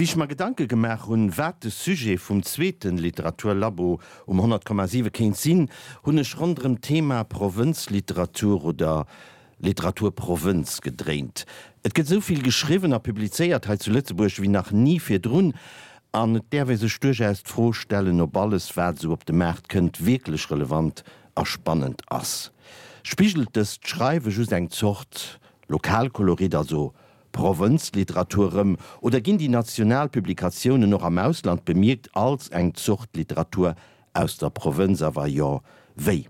Wéi ech mer Gedanke gemaach hunn, wat de Sujet vum zweete Literaturlabo um 100,7 kéint sinn, hunn ech ronderëm d'Thema Provënzliteratur oder Literaturprovënz gedréint. Et gëtt esou vill geschriwwen a publizéiert hei zu Lëtzebuerg wéi nach ni virdrun an et däerf ee sech duerchaus d'Fro stellen, ob alles, wat esou op de Maart kënnt, wierklech relevant a spannend ass. Spigelt dëst Schreiwe just eng Zort Lokalkolorit, also Provënzliteratur erëm, oder ginn déi national Publikatiounen och am Ausland bemierkt als eng Zort Literatur aus der Provënz, a wa jo, wéi?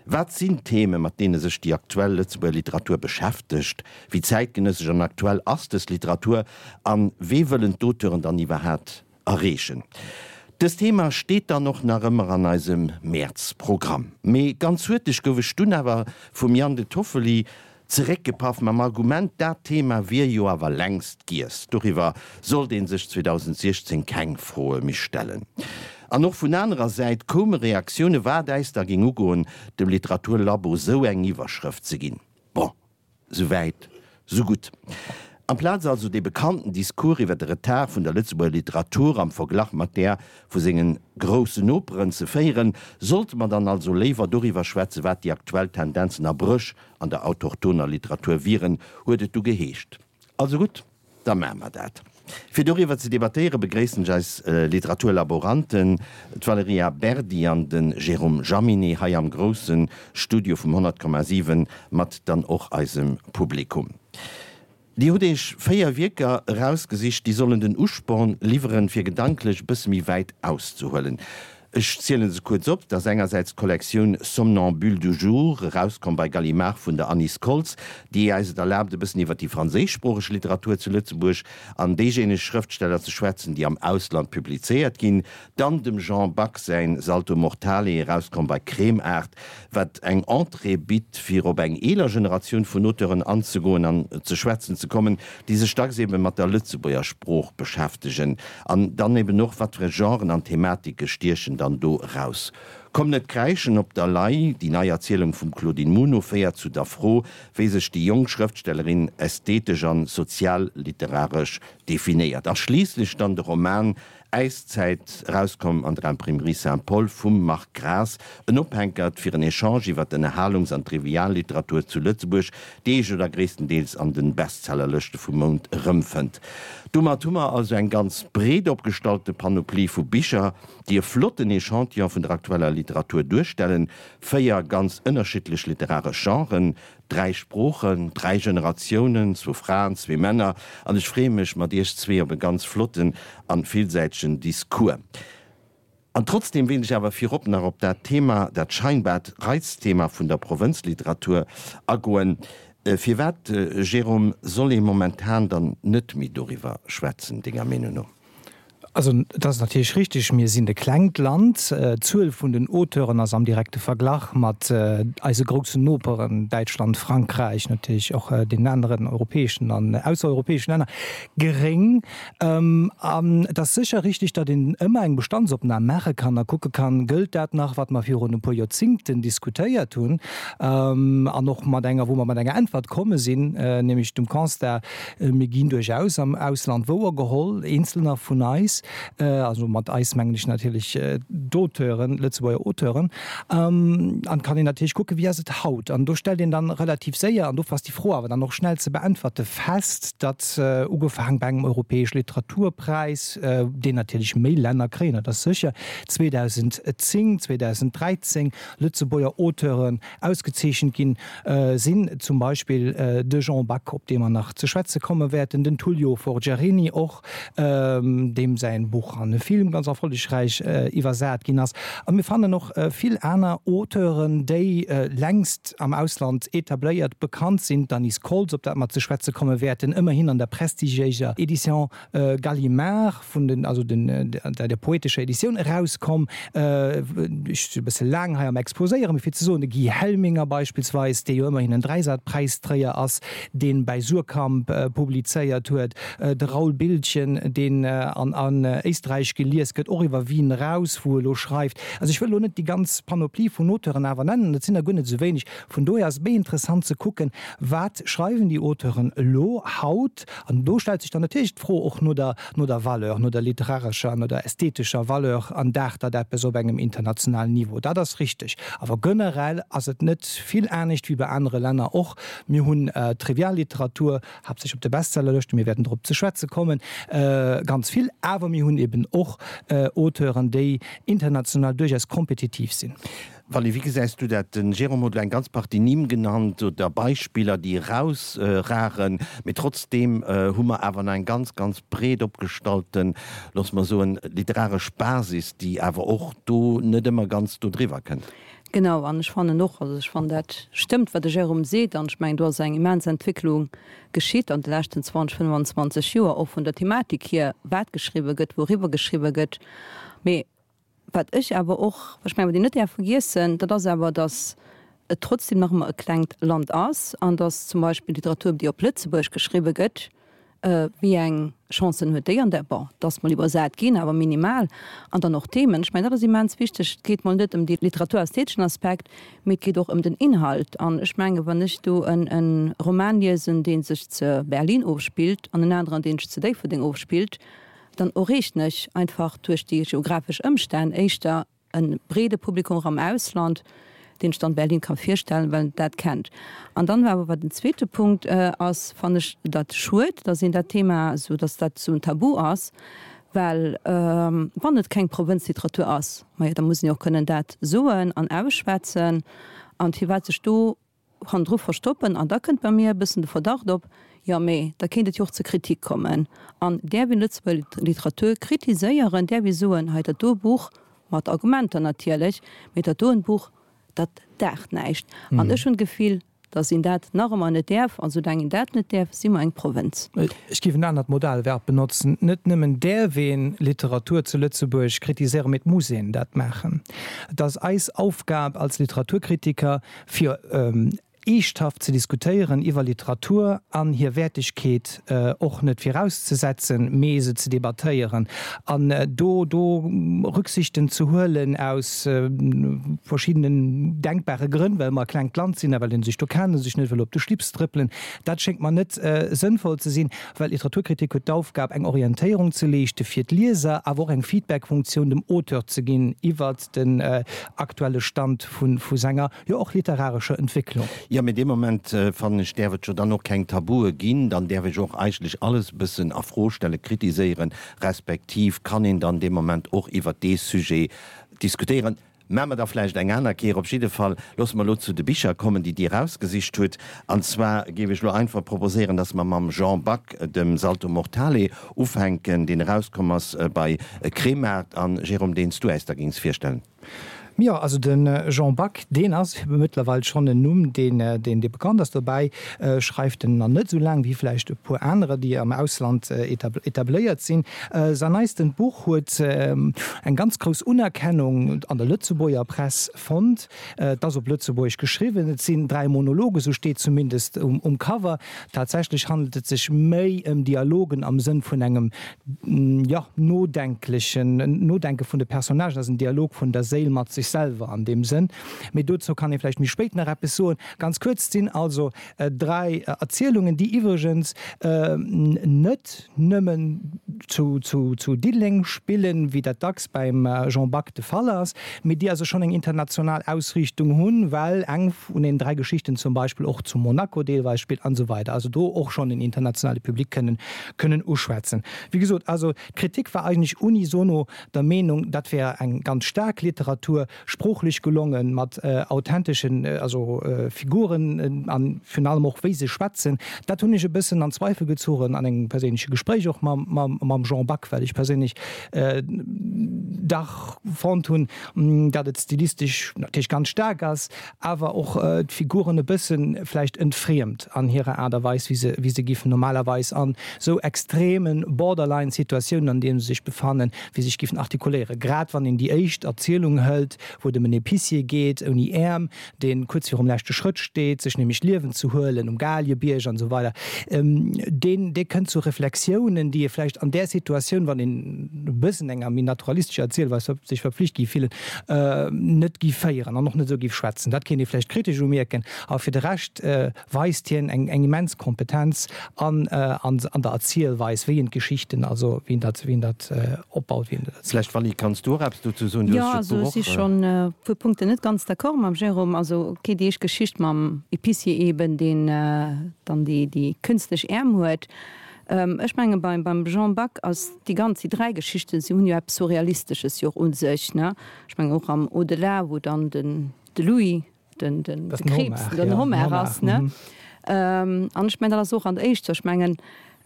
Wat sinn d'Theme mat deene sech déi aktuell Lëtzebuerger Literatur beschäftegt? Wéi zäitgenëssesch an aktuell ass dës Literatur a wee wëllen d'Auteuren dann iwwerhat erreechen. Dëst Thema steet dann och nach ëmmer an eisem Mäerz-Programm. Mee ganz huerteg gouf ech dunn awer vum Jan De Toffoli zeréckgepaff mam Argument, dat Thema wier jo awer längst giess, doriwwer sollt ee sech 2016 keng Froe méi stellen. An och vun anerer Säit koume Reaktioune wat äis da géing ugoen, dem Literaturlabo sou eng Iwwerschrëft ze ginn. Bon. Sou wäit, sou gutt. Amplaz also dee bekannten Discours iwwer de Retard vun der Lëtzebuerger Literatur am Verglach mat där vu sengen groussen Noperen ze féieren, sollte mer dann also léiwer doriwwer schwätzen, wat déi aktuell Tendenzen a Bréch an der autochtoner Literatur wieren, huet et du geheescht. Also gutt. Da maache mer dat. Fir doriwwer ze debattéiere begréissen ech eis Literaturlaboranten, d'Valerija Berdi an de Jérôme Jaminet hei am grousse Studio vum 100,7 mat dann och eisem Publikum. Dir hutt Iech 4 Wierker erausgesicht, déi sollen den Usporn liwweren, fir gedanklech e bësse méi wäit auszehuelen. Ech zielen se kuerz op, Et ass engersäits d'Kollektioun Somnambule du jour, erauskomm bei Gallimard vun der Anise Koltz, déi äis et erlaabt e bëssen iwwer déi franséischsproocheg Literatur zu Lëtzebuerg an déijéineg Schrëftsteller ze schwätzen, déi am Ausland publizéiert ginn. Dann dem Jean Back säin Salto Mortale, erauskomm bei Kremart, wat eng Entrée bitt, fir op eng eeler Generatioun vun Auteuren anzegoen an ze schwätzen ze kommen, déi sech dacks ebe mat der Lëtzebuerger Sprooch beschäftegen. An dann eben och, wat fir Genren an Thematike stiechen dann do eraus. Komm net kräischen op der Lay, déi nei Erzielung vum Claudine Muno féiert zu der Fro, wéi sech déi jonk Schrëftstellerin ästhetesch an sozial-literaresch definéiert. A schliisslech dann de Roman Äiszäit, erauskomm an der Imprimerie Saint-Paul vum Marc Graas, en Ophänkert fir en Echange iwwer d'Ënnerhalungs an d'Trivialliteratur zu Lëtzebuerg, déi ee jo da gréisstendeels an de Bestsellerlëschte vum Mount erëmfënnt. Domat hu mer also eng ganz breet opgestallte Panoplie vu Bicher, déi e flotten Echantillon vun der aktueller Literatur duerstellen, 4 ganz ënnerschiddlech literaresch Genren, Dräi Sproochen, dräi Generatiounen, zwou Fraen, zwee Männer, an ech freeë mech mat iech zwee op e ganz flotten an villsäitegen Discours. An trotzdem wéilt ech awer virop nach op dat Thema, dat scheinbart Reizthema vun der Provënzliteratur agoen. Firwat, Jérôme, soll ee momentan dann net méi doriwwer schwätzen, denger Meenung no? Also et ass natierlech richtig, mir sinn e klengt Land. D'Zuel vun den Auteuren ass am direkte Verglach mat eise groussen Noperen, Däitschland, Frankräich, natierlech och deenen aneren europäeschen an aussereuropäeschen Länner, geréng. An et ass sécher richtig, datt een ëmmer eng Bestandsopnam maache kann a kucke kann, Gëllt dat nach, wat mer virun e puer Joerzingten diskutéiert hunn? An och mat enger, wou mer mat enger Äntwert komme sinn, nämlech dem Constat, Mir ginn duerchaus am Ausland wouergeholl, Eenzelner vun eis, also mat eis mengen ech natierlech d'Auteuren, Lëtzebuerger Auteuren. An et kann een natierlech kucken, wéi ass et haut? An do stellt een dann relativ séier, an dofir ass déi Fro awer dann och schnell ze beäntwerte, fest, datt ugefaang bei engem europäesch Literaturpräis, deen natierlech méi Länner kréien, dat ass sécher, 2010, 2013 Lëtzebuerger Auteuren ausgezeechent ginn sinn, zum Beispill de Jean Back, op dee mer nach ze schwätze komme wäerten, den Tullio Forgiarini och, deem säin Buch an e Film ganz erfollegräich iwwersat ginn ass. A mir fannen och vill aner Auteuren, déi längst am Ausland etabléiert, bekannt sinn, d'Anise Koltz, op dat mer ze schwätze komme wäerten, ëmmerhin an der prestigiéiser Edition Gallimard, vun den, also den, der poetescher Editioun erauskomm. Ech si e bësse laang hei am Exposéieren, mee fir ze soen, de Guy Helminger beispillsweis, dee jo ëmmerhin en Dräisatpräistréier ass, dee bäi Suhrkamp publizéiert huet, de Raoul Biltgen, deen an an. an Éisträich gelies gëtt, och iwwer Wien eraus, wou e lo schreift. Also ech wëll elo net déi ganz Panoplie vun Auteuren awer nennen, et sinn der guer net esou wéineg. Vun dohier ass et méi interessant ze kucken, wat schreiwen déi Auteuren elo, haut. An do stellt sech dann natierlech d'Fro och no der, no der Valeur, no der literarescher, no der ästhetescher Valeur an daacht dat eppes op engem internationalen Niveau. Dat ass richteg. Awer generell ass et net vill anescht wéi bei anere Länner och. Mir hunn Trivialliteratur, haaptsächlech op de Bestsellerlëschten, mir wäerten drop ze schwätze kommen, ganz vill, awer mir hunn eben och Auteuren, déi international duerchaus kompetitiv sinn. Vally, wéi gesäis du dat? De Jérôme huet elo eng ganz Partie Nimm genannt oder Beispiller, déi erausragen, mee trotzdeem hu mer awer nach eng ganz, ganz breet opgestallten, loosse mer soen, literaresch Basis, déi awer och do net ëmmer ganz do driwwer kënnt. Genau, an ech fannen och, also ech fannen dat stëmmt, wat de Jérôme seet, an ech mengen do ass eng immens Entwécklung geschitt an de leschten 20, 25 Joer, och vun der Thematik hier, wat geschriwwe gëtt, wouriwwer geschriwwe gëtt. Mee wat ech awer och, ech mengen wat een net däerf vergiessen, dat ass awer, datt et trotzdem nach ëmmer e klengt Land ass an datt zum Beispill d'Literatur, déi op Lëtzebuerg geschriwwe gëtt, Wéi eng Chancen huet déi an der, bon, et ass mol iwwersat ginn, awer minimal. An dann och d'Themen. Ech mengen, dat ass immens wichteg. Et geet mol net ëm dee literaturästheteschen Aspekt, mee et geet och ëm den Inhalt. An ech mengen, wann ech do en Roman liesen, dee sech ze Berlin ofspillt, an en aneren, dee sech zu Déifferdeng ofspillt, dann erreechen ech einfach duerch déi geographesch Ëmstänn éischter e breede Publikum och am Ausland, deen sech dann Berlin ka virstellen, well en dat kennt. An dann awer, wat den zweete Punkt ass, fannen ech dat schued, dass een dat Thema esou, dass dat esou en Tabu ass, well wann et keng Provënzliteratur ass, majo, da muss een jo och kënnen dat soen an ausschwätzen. An firwat sech do hannendru verstoppen an da kënnt bei mir e bëssen de Verdacht op, jo mee da kéint et jo och zur Kritik kommen an däerf een Lëtzebuerger Literatur kritiséieren, däerf ee soen, hei dat do Buch, mat Argumenter natierlech, mee dat doen Buch, dat daacht näischt. An ech hunn d'Gefill, datt een dat nach ëmmer net däerf an soulaang een dat net däerf, si mer eng Provënz. Ech géif en anert Modalverb benotzen, Net nëmmen däerf ee Literatur zu Lëtzebuerg kritiséieren, mee et muss een dat maachen. Et ass eis Aufgab als Literaturkritiker, fir eeschthaft ze diskutéieren iwwer Literatur an hir Wäertegkeet och net virauszesetzen, mee se ze debattéieren an do do Rücksichten ze huelen aus verschiddenen denkbare Grënn, well mer e klengt Land sinn a well ee sech do kennt a sech net wëll op de Schlips trëppelen. Dat schéngt mer net sënnvoll ze sinn, well Literaturkritik huet d'Aufgab eng Orientéierung ze leeschte fir d'Lieser, awer och eng Feedbackfunktioun dem Auteur ze ginn iwwert den aktuelle Stand vu senger, jo och literarescher Entwécklung. Jo, mee dee Moment, fannen ech, däerf et jo dann och keng Tabue ginn. Dann däerf ech och eigentlech alles e bëssen a Fro stellen, kritiséieren, respektiv kann een dann dee Moment och iwwert dee Sujet diskutéieren. Maache mer da vläicht eng aner Kéier. Op jidde Fall loosse mer elo zu de Bicher kommen, déi Dir erausgesicht hutt. An zwar géif ech elo einfach proposéieren, dass mer mam Jean Back, dem Salto Mortale, ufänken, deen erauskomm ass bei Kremart. An, Jérôme, deen s du äis da géings virstellen. Jo, also de Jean Back, deen ass mëttlerweil schonn en Numm, deen, deen bekannt ass. Dobäi schreift en nach net esou laang wéi vläicht e puer anerer, déi am Ausland etabléiert sinn. Säin neistent Buch huet eng ganz grouss Unerkennung an der Lëtzebuerger Press fonnt. Et ass op Lëtzebuergesch geschriwwen, et sinn 3 Monologen, esou steet zumindest um Cover. Tatsächlech handelt et sech méi ëm Dialogen am Sënn vun engem, jo, nodenklechen Nodenke vun de Personnagen. Et ass en Dialog vun der Séil mat sech selwer an deem Sënn. Mee dozou kann ee vläicht méi spéit nach eppes soen. Ganz kuerz, et sinn also 3 Erzielungen, déi iwwregens net nëmmen zu Diddeleng spillen, wéi dat dacks beim Jean Back de Fall ass, mee déi also schonn eng international Ausriichtung hunn, well eng vun den 3 Geschichten zum Beispill och zu Monaco deelweis spillt an esou weider, also do och schonn en internationale Public kënnen kënnen uschwätzen. Wéi gesot, also d'Kritik war eigentlech unisono der Meenung, dat wär eng ganz staark Literatur, Sproochlech gelongen, mat authenteschen, also Figuren an virun allem och wéi se schwätzen. Dat hunn ech e bëssen an Zweifel gezogen an engem perséinleche Gespréich och mam Jean Back, well ech perséinlech dach fonnt hunn, datt et stilistesch natierlech ganz staark ass, awer och d'Figuren e bësse vläicht entfriemt an hirer Aart a Weis, wéi se, wéi se giffen normalerweis an esou extreme Borderline-Situatiounen, an deene se sech befannen, wéi se sech giffen artikuléieren. Grad wann een déi éischt Erzielung hëlt. wou et ëm en Épicier geet, ouni Äerm, dee kuerz virum leschte Schrëtt steet, sech nämlech d'Liewen ze huelen, um Galiebierg an esou weider, deen, dee kënnt zu Reflexiounen, déi ee vläicht an där Situatioun, wann een e bëssen enger méi naturalistescher Erzielweis sech verpflicht géif fillen, net géif féieren an och net esou géif schwätzen. Dat kéint ee vläicht kritesch umierken, awer fir de Rescht weist hien eng eng immens Kompetenz an an an der Erzielweis, wéi en d'Geschichten, also wéi en dat wéi en dat opbaut, wéi en dat erzielt. Vläicht Vally, kanns du och eppes dozou soen? Du Jo, hues jo also ech si d'Buch och. schonn e puer Punkten net ganz d'accord mam Jérôme. Also ok, déi éischt Geschicht mam Épicier eben, deen dann déi déi künstlech Äerm huet. Ech menge beim beim Jean Back ass déi ganz, déi 3 Geschichten, si hunn jo eppes Surrealistesches jo och u sech, ne? Ech mengen och am Au-delà, wou dann den de Louis den, den, de Krebs, den Homard ass. Ne? Ähm, an ech mengen, dat ass och an der éischter, ech mengen,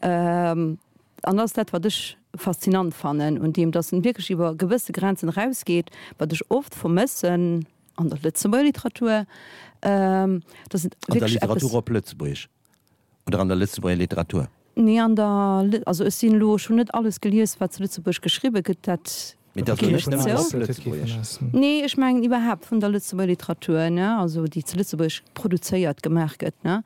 ähm, an dat ass dat, wat ech faszinant fannen un deem, dass en wierklech iwwer gewësse Grenzen erausgeet, wat ech oft vermëssen an der Lëtzebuerger Literatur, ähm, dass et An der wierklech eppes. Literatur op Lëtzebuergesch oder an der Lëtzebuerger Literatur? Nee, an der, also ech sinn elo, ech hunn net alles gelies, wat zu Lëtzebuerg geschriwwe gëtt, dat Mee dat ass elo net nëmmen op Lëtzebuergesch. Nee, ech mengen iwwerhaapt vun der Lëtzebuerger Literatur, ne, also déi zu Lëtzebuerg produzéiert, gemaach gëtt, ne.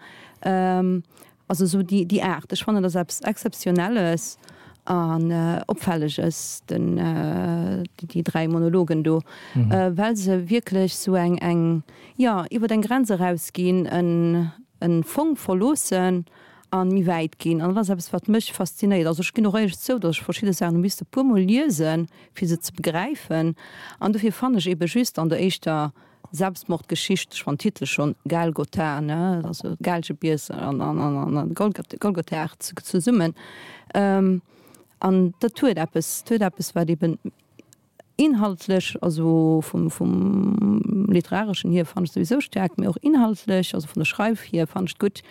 Also esou déi, déi Aart. Ech fannen, dat ass eppes Exzeptionelles an Opfälleges, den, déi 3 Monologen do, well se wierklech esou eng, eng, jo, iwwer eng Grenz erausginn, en, en Fong verloossen an méi wäit ginn. An dat ass eppes, wat mech faszinéiert. Also ech ginn och éierlech zou, datt ech verschidde Saachen hu misste puermol liesen, fir se ze begräifen. An dofir fannen ech eebe just an der éischter Selbstmordgeschicht, ech fannen den Titel schonn, Galgotha, ne, also Gaalgebiers an Golgotha zesummen, an dat huet eppes, dat huet eppes, wat eeben Inhaltlech, also vum vum literareschen hier fannen ech souwisou staark, mee och inhaltlech, also vun der Schreif hier fannen ech et gutt,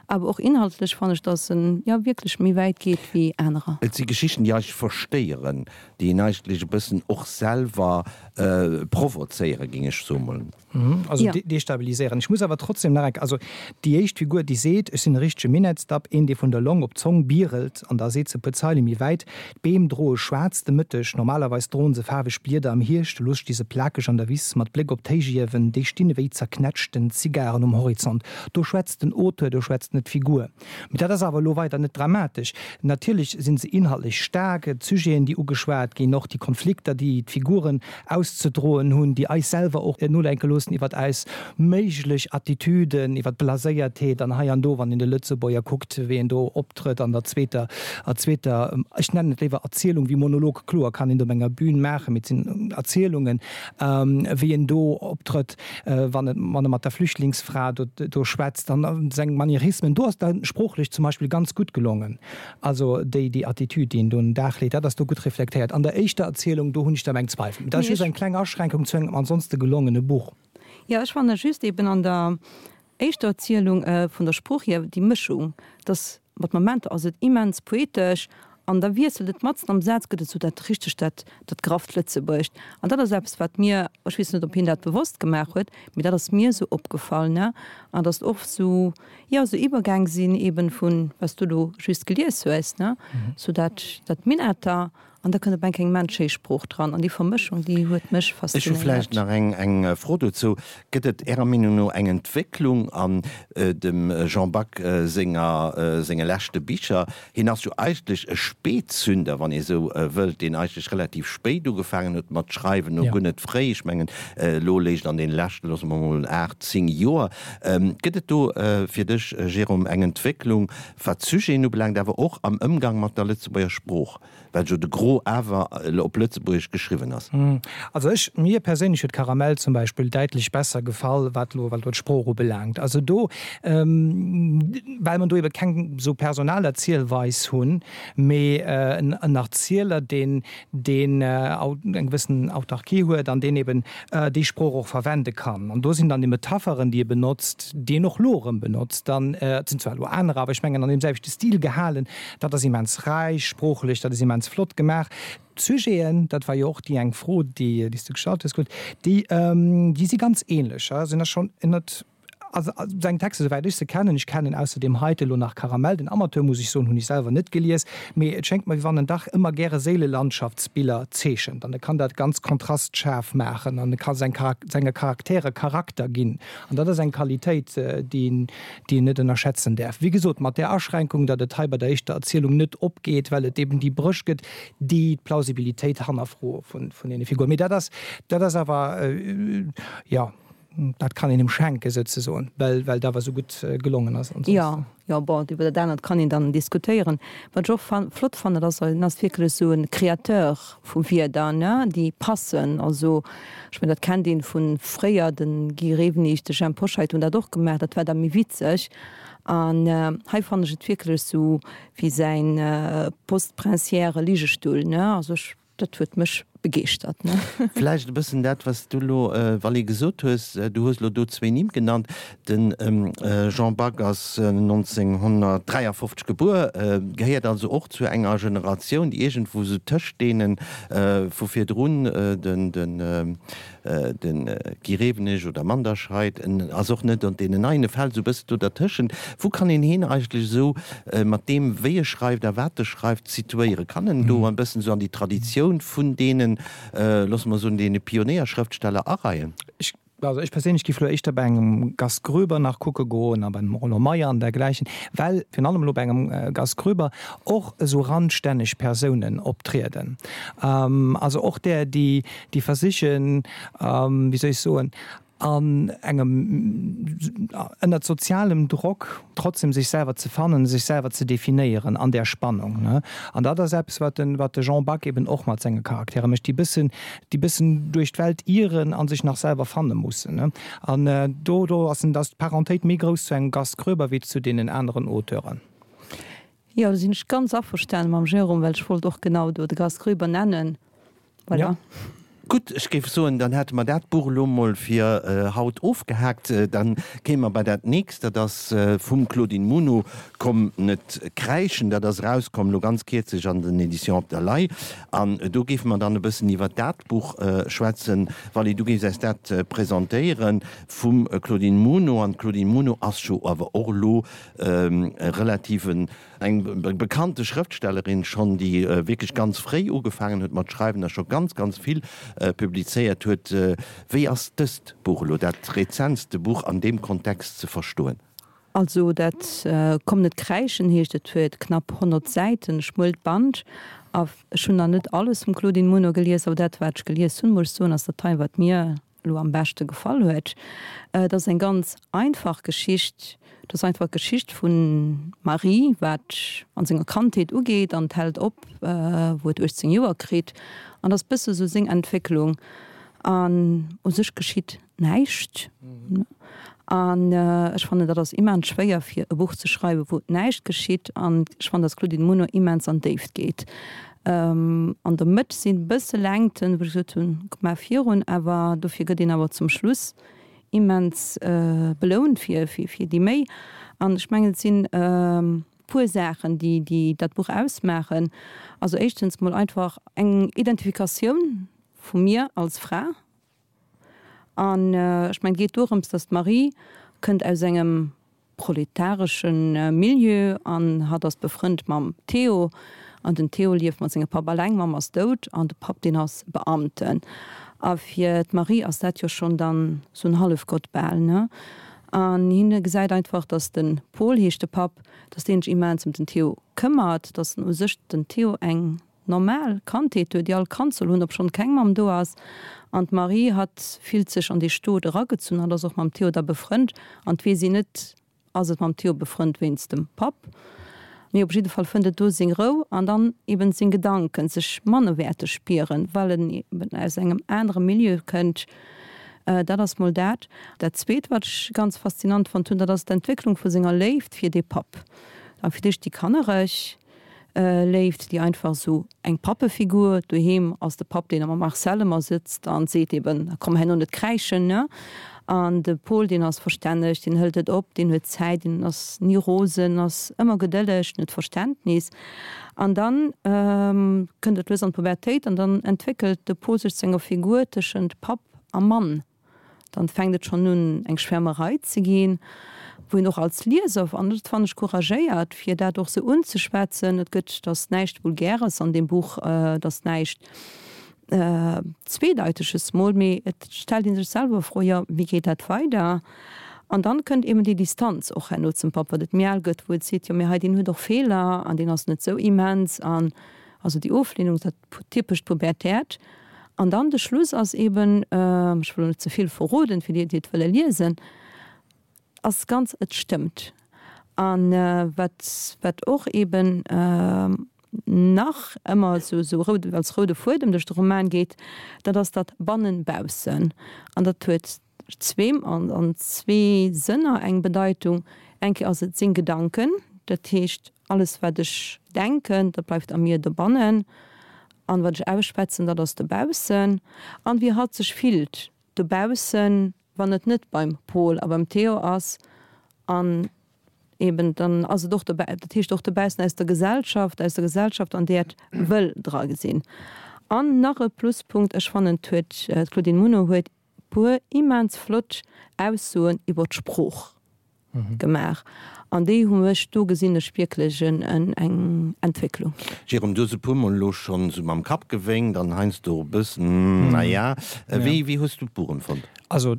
awer och inhaltlech fannen ech, dass en jo wierklech méi wäit geet wéi anerer. Et si Geschichten, déi eigentlech verstéieren, déi een eigentlech e bëssen och selwer provozéieren, géing ech soen. Also ja. destabiliséieren. Ech muss awer trotzdem nach eng, also déi éischt Figur, déi seet, ech sinn e richtege Minettsdapp, een, dee vun der Long op d'Zong bierelt, an da seet se e puer Zeile méi wäit, D'Beem droe schwaarz de Mëtteg, normalerweis droen se faarweg Blieder am Hierscht, elo sti se plakeg an der Wiss, mat Bléck op d'Héichiewen, déi stinn ewéi zerknätschten Zigaren um Horizont. Do schwätzt den Auteur, do schwätzt net d'Figur. Mee dat ass awer elo weider net dramatesch. Natierlech si se inhaltlech staark, d'Sujeten, déi ugeschwat ginn, och déi Konflikter, déi d'Figuren auszedroen hunn, déi eis selwer och nodenke loossen iwwert eis méiglech Attitüden, iwwert d'Blaséiertheet an hei an do, wann een de Lëtzebuerger kuckt, wéi en do optrëtt an der zweeter, zweeter, ech nennen et léiwer Erzielung wéi Monolog, kloer kann een do op enger Bühn maachen, mee et sinn Erzielungen, wéi en do optrëtt. wann et wann e mat der Flüchtlingsfra do do schwätzt an seng Manierismen, do ass da sproochlech zum Beispill ganz gutt gelongen. Also déi déi Attitüd, déi en do un den Dag leet, dat ass do gutt reflektéiert. An der éischter Erzielung, do hunn ech da meng Zweifel. Mee dat ass just eng kleng Aschränkung zu engem ansonste gelongene Buch. Jo, ech fannen just eben an der éischter Erzielung vun der Sprooch hier déi Mëschung, dass Mat Momenter ass et immens poetesch an da wiesselt et matzen am Saz, gëtt et sou dat richteg dat dat grafft Lëtzebuergescht. An dat ass eppes, wat mir, ech weess net, ob hien dat bewosst gemaach huet, mee dat ass mir sou opgefall, ne, an datt oft sou, jo, sou Iwwergäng sinn eeben vun, wat s du elo just gelies hues, ne, sou dat dat Minetter An da kënnt op eng Kéier eng menschéi Sprooch dran. An déi Vermëschung, déi huet mech Ech hu vläicht faszinéiert. nach eng eng Fro dozou. Gëtt et Ärer Meenung no eng Entwécklung an dem Jean Back senger senge leschte Bicher? Hien ass jo eigentlech e Spätzünder, wann ee sou wëllt, deen eigentlech relativ spéit ugefaangen huet mat schreiwen, no guer net fréi. Ech mengen, elo léischt an deene leschten, loosse mer mol 8, 10 Joer. Gëtt et do fir dech, Jérôme, eng Entwécklung, wat d'Sujeten ubelaangt, awer och am Ëmgang mat der Lëtzebuerger Sprooch? Well jo de Gros awer op Lëtzebuergesch geschriwwen ass. Also ech, mir perséinlech huet Karamell zum Beispill däitlech besser gefall, wat elo, wat elo d'Sprooch ubelaangt. Also do, well mer do ebe keng esou Personalerzielweis hunn, mee en Erzieler, deen, deen eng gewëssen Autarkie huet an deen eben déi Sprooch och verwende kann. An do sinn dann déi Metapheren, déi e benotzt, déi en och elo erëm benotzt, dann, et sinn zwar elo anerer, awer ech mengen an deem selwechte Stil gehalen, Dat ass immens räich sproochlech, dat ass immens flott gemaach. D'Sujeten, dat war jo och déi eng Fro, déi s du gestallt hues, Claude, déi, déi si ganz ähnlech, sinn da schonn ënnert. Also seng Texter, souwäit ech se kennen, ech kennen ausser deem heite lo nach Karamell, den Amateur, muss ech soen, hunn ech selwer net gelies, mee et schéngt mer, wéi wann en dach ëmmer gäre Séilelandschaftsbiller zeechent an e kann dat ganz kontrastschaarf maachen an e ka seng senge Charaktere Charakter ginn an dat ass eng Qualitéit, déi een déi een net ënnerschätzen däerf. Wéi gesot, mat där Aschränkung, datt et hei bei der éischter Erzielung net opgeet, well et eben déi Bréch gëtt, déi d'Plausibilitéit hannerfroe vun deene Figuren. Mee dat ass dat ass awer, jo. Dat kann een em schenken souzesoen, well well et awer esou gutt gelongen ass ansonsten. Jo, jo, bon, iwwer dat anert kann een dann diskutéieren. Wat ech och fan flott fannen, dat ass, en ass wierklech esou e Créateur vu Wierder, ne, déi passen. Also, ech mengen, dat kennt een vu fréier, de Guy Rewenig, de Jhemp Hoscheit hunn dat och gemaach, dat war da méi witzeg. An hei fannen ech et wierklech esou wéi säin postprinciäre Ligestull, ne, also ech. Dat huet mech begeeschtert, ne? Vläicht e bëssen dat, wat s du elo, Vally, gesot hues. Du hues elo do zwéin Nimm genannt. De Jean Back ass 1953 gebuer, gehéiert also och zu enger Generatioun, déi iergendwou esou tëscht deene vu virdrun, den De Guy Rewenig oder Manderscheid, en ass och net an deenen Neien, e fält esou e bëssen do dertëschent. Wou kann een hien eigentlech esou mat deem, wéi e schreift a wat e schreift, situéieren? Kann en do e bëssen esou an déi Traditioun vun deenen, loosse mer soen, deene Pionéierschrëftsteller areien? Ech, also ech perséinlech giff elo éischter bei engem Gast Groeber nach kucke goen a bei engem Roland Meyer an dergläichen, well virun allem elo bei engem Gast Groeber och esou randstänneg Persounen optrieden, also och där, déi déi versichen, wéi soll ech soen, an engem, ënnert sozialem Drock trotzdem sech selwer ze fannen, sech selwer ze definéieren an där Spannung. An dat ass eppes, wat de, wat de Jean Back eben och mat senge Charaktere mécht, déi bëssen, déi bëssen duerch d'Welt ieren a sech nach selwer fanne mussen. An do, do ass, ass d'Parentéit méi grouss zu engem Gast Groeber wéi zu deenen aneren Auteuren. Jo, do sinn ech ganz averstane mam Jérôme, well ech wollt och genau do de Gast Groeber nennen. Voilà. Ja. Gutt, ech géif soen, dann hätte mer dat Buch elo mol fir haut ofgehaakt. Dann kéime mer bei dat nächst, dat ass vum Claudine Muno, Komm net kräischen. Dat ass erauskomm elo ganz kierzlech an den Éditions Op der Lay. An do géife mer dann e bëssen iwwert dat Buch schwätzen. Vally, du géifs eis dat presentéieren vum Claudine Muno. An d'Claudine Muno ass jo awer och elo e relativ eng bekannte Schrëftstellerin schonn, déi wierklech ganz fréi ugefaangen huet mat schreiwen a scho ganz, ganz vill publizéiert huet. Wéi ass dëst Buch elo, dat rezentste Buch an deem Kontext ze verstoen? Also dat Komm net kräischen heescht et, huet knapp 100 Säiten, e schmuelt Band. A ech hunn nach net alles vum Claudine Muno gelies, awer dat wat ech gelies hunn, muss ech soen, ass dat hei wat mir elo am beschte gefall huet. Et ass eng ganz einfach Geschicht. Et ass einfach d'Geschicht vun Marie, wat an senger Kandheet ugeet an et hält op, wou et 18 Joer kritt. An et ass bësse sou seng Entwécklung. An u sech geschitt näischt. An ech fannen, dat ass immens schwéier fir e Buch ze schreiwen, wou näischt geschitt. An ech fannen, dass d'Claudine Muno immens an d'Déift geet. An der Mëtt sinn bësse Längten, wou ech gesot hunn, komm mar virun, awer dofir gëtt een awer zum Schluss immens belount fir fir déi Méi. An ech mengen, et sinn puer Saachen, déi déi dat Buch ausmaachen. Also éischtens mol einfach eng Identifikatioun vu mir als Fra. An ech mengen, et geet dorëms, datt d'Marie kënnt aus engem proletaresche Milieu an hatt ass befrënnt mam Theo an den Theo lieft mat sengem Papp alleng, d'Mamm ass dout an de Papp deen ass Beamten. A fir d'Marie ass dat jo schonn dann sou en Hallefgott bal, ne? An hien gesäit einfach, datt de Paul, heescht de Papp, datt deen sech immens ëm den Theo këmmert, datt en u sech den Theo eng normal Kandheet huet, déi all Kand soll hunn, obschonn keng Mamm do ass. An d'Marie, hatt fillt sech an dee Stot eragezunn, hatt ass och mam Theo da befrënnt. An 't weess een net, ass et mam Theo befrënnt wéinst dem Papp? Mee op jidde Fall fënnt et do seng Rou an dann eben seng Gedanken, sech mannerwäerteg spieren, well en eben aus engem anere Milieu kënnt. Dat ass mol dat. Dat Zweet, wat ech ganz faszinant fonnt hunn, dat ass d'Entwécklung vu senger Léift fir dee Papp. A fir d'éischt déi kannereg. Léift, déi einfach esou eng Pappefigur. Doheem ass de Papp, deen mam Marcel ëmmer sëtzt an seet eben, komm herno net kräischen, ne? An de Paul, deen ass verstänneg, deen hëlt et op, deen huet Zäit, deen ass ni rosen, ass ëmmer gedëlleg, deen huet Verständnis. An dann kënnt et lues an d'Pubertéit an dann entwéckelt de Paul sech zu enger Figur tëschent Papp a Mann. Dann fänkt et schonn un eng Schwärmerei ze ginn, wou een och als Lieser, an dat fannen ech couragéiert, fir dat och sou unzeschwätzen, et gëtt, et ass näischt Vulgäres an deem Buch, et ass näischt Zweedeiteges mol, mee et stellt ee sech selwer Fro, jo wéi geet dat weider? An dann kënnt eben déi Distanz och herno zum Papp, wat et méi al gëtt, wou et seet, jo mee hei deen huet och Feeler an deen ass net sou immens an also déi Oflehnung, dat typescht Pubertäert. An dann de Schluss ass eben, ech wëll elo net ze vill verroden fir déi, déi et wëlle liesen, ass ganz, et stëmmt. An wat wat och eben nach ëmmer esou esou roud als roude Fuedem duerch de Roman geet, dat ass dat Bannen-Baussen. An dat huet zweem an an zwee Sënner eng Bedeitung. Eng Kéier ass et seng Gedanken, dat heescht alles wat ech denken, dat bleift a mir dobannen, an wat ech ausschwätzen, dat ass dobaussen. An wéi hatt sech fillt dobaussen, wann et net beim Pol a beim Theo ass, an eben dann ass et och dobäi, dat heescht och dobaussen aus der Gesellschaft, aus der Gesellschaft an där et wëll dra gesinn. An nach e Pluspunkt, ech fannen et huet, d'Claudine Muno huet puer immens flott Aussoen iwwer d'Sprooch gemaach an déi hu mech, do gesinn ech wierklech eng Entwécklung. Jérôme, du hues e puermol elo schonn esou mam Kapp gewénkt an heiansdo och e bëssen, na ja. Wéi, wéi hues du d'Buch empfonnt? Also,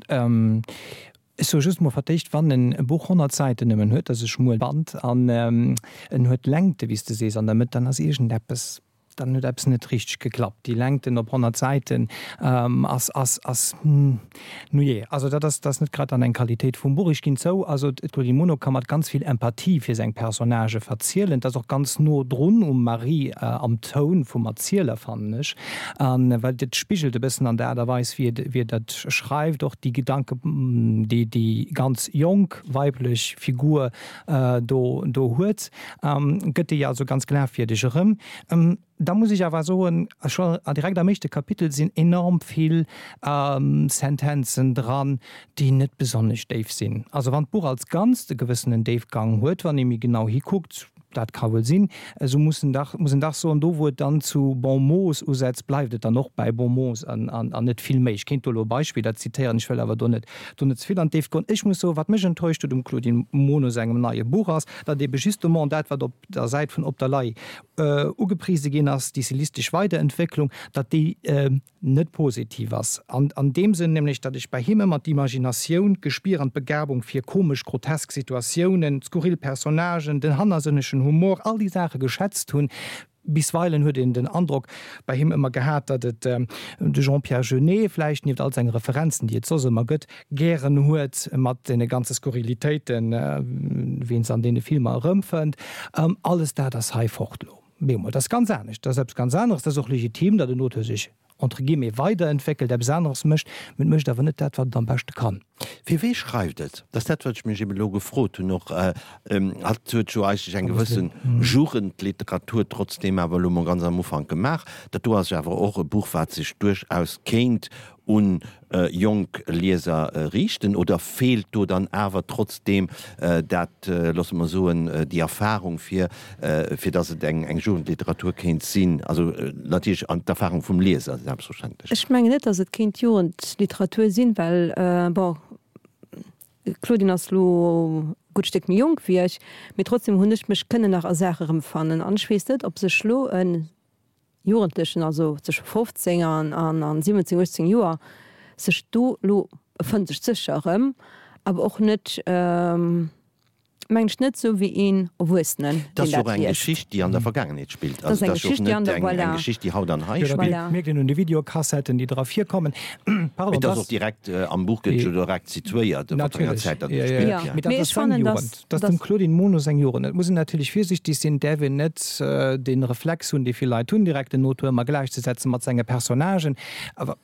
ech soe just mol fir d'éischt, wann en e Buch 100 Säiten nëmmen huet, dat ass e schmuel Band, an en huet Längte, wéi s de sees, an der Mëtt, dann ass iergendeppes Dann huet eppes net richteg geklappt. Déi Längten op 100 Säiten ass, ass, ass, nujee, also dat ass, dat ass net grad dann eng Qualitéit vum Buch. Ech ginn zou, also d'Claudine Muno ka mat ganz vill Empathie fir seng Personnagë verzielen. Et ass och ganz no drun um Marie am Toun vum Erzieler, fannen ech, an well et spigelt e bëssen an der Aart a Weis, wéi et, wéi et dat schreift, och déi Gedanken, déi déi ganz jonk weiblech Figur do, do huet. Gëtt déi also ganz glafwierdeg erëm. Da muss ech awer soen, scho direkt am éischte Kapitel sinn enorm vill Sentenzen dran, déi net besonnesch déif sinn. Also wann d'Buch als Ganzt e gewëssenen Déifgang huet, wann ee méi genau hikuckt, dat ka wuel sinn, esou muss en dach, muss en dach soen, do wou et dann zu Bon mots usetzt, bleift et dann och bäi Bon mots an net vill méi. Ech kéint do elo Beispiller zitéieren, ech wëll awer do net do net ze vill an d'Déift goen. Ech muss soen, wat mech enttäuscht huet um Claudine Muno sengem neie Buch ass, datt ebe justement dat, wat op der Säit vun Op der Lay ugeprise ginn ass, déi stilistesch Weiderentwécklung, datt déi net positiv ass. An an deem Sënn nämlech, datt ech bei him ëmmer d'Imaginatioun, d'Gespier an d'Begabung fir komesch, grotesk Situatiounen, skurril Personnagen, den hannersënnegen Humor, all déi Saache geschätzt hunn. Bisweilen huet een den Androck bei him ëmmer gehat, datt et de Jean-Pierre Jeunet, vläicht nieft all senge Referenzen, déi et soss ëmmer gëtt, gären huet mat deene ganze Skurrilitéiten, wéi een se an deene Filmer erëmfënnt. Alles dat ass hei fort elo. Bemol, dat ass ganz anescht, dat ass eppes ganz aneres. Dat ass och legitim, datt en Auteur sech entre guillemets weiderentwéckelt, eppes aneres mécht, mä et mécht awer net dat, wat et am beschte kann. Fir wee schreift et? Dat ass dat, wat ech mech eben elo gefrot hunn och. Hatt huet jo eigentlech eng gewësse Jugendliteratur trotzdeem awer elo mol ganz am Ufank gemaach. Dat do ass jo awer och e Buch, wat sech duerchaus kéint un jonk Lieser riichten. Oder feelt do dann awer trotzdeem dat, loosse mer soen, déi Erfahrung fir, fir datt et eng Jugendliteratur kéint sinn? Also natierlech d'Erfahrung vum Lieser selbstverständlech. Ech mengen net, datt et kéint Jugendliteratur sinn, well, bon, d'Claudine ass elo e gutt Stéck méi jonk wéi ech, mee trotzdem hunn ech mech kënnen nach a Saache erëmfannen. An ech weess net, ob sech elo e Jugendlechen, also zwësche 15 an 17, 18 Joer, sech do elo, e fënnt sech sécher erëm, awer och net, mengen ech, net esou wéi een Erwuessenen, deen dat liest. Dat ass jo och eng Geschicht, déi an der Vergaangenheet spillt. Dat ass eng Geschicht, déi an der, voilà. Eng Geschicht, déi haut an hei spillt. Voilà. Mierkt een un de Videokassetten, déi dra virkommen. Pardon, Mee dat ass och direkt, am Buch gëtt jo direkt situéiert, wat fir enger Zäit dat spillt. Jo. Mee dat ass seng Jugend. Dat ass dem Claudine Muno seng Jugend. Et muss een natierlech virsiichteg sinn, et däerf een net dee Reflex hunn, dee vill Leit hunn, direkt den Auteur ëmmer gläichzesetzen mat senge Personnagen. Awer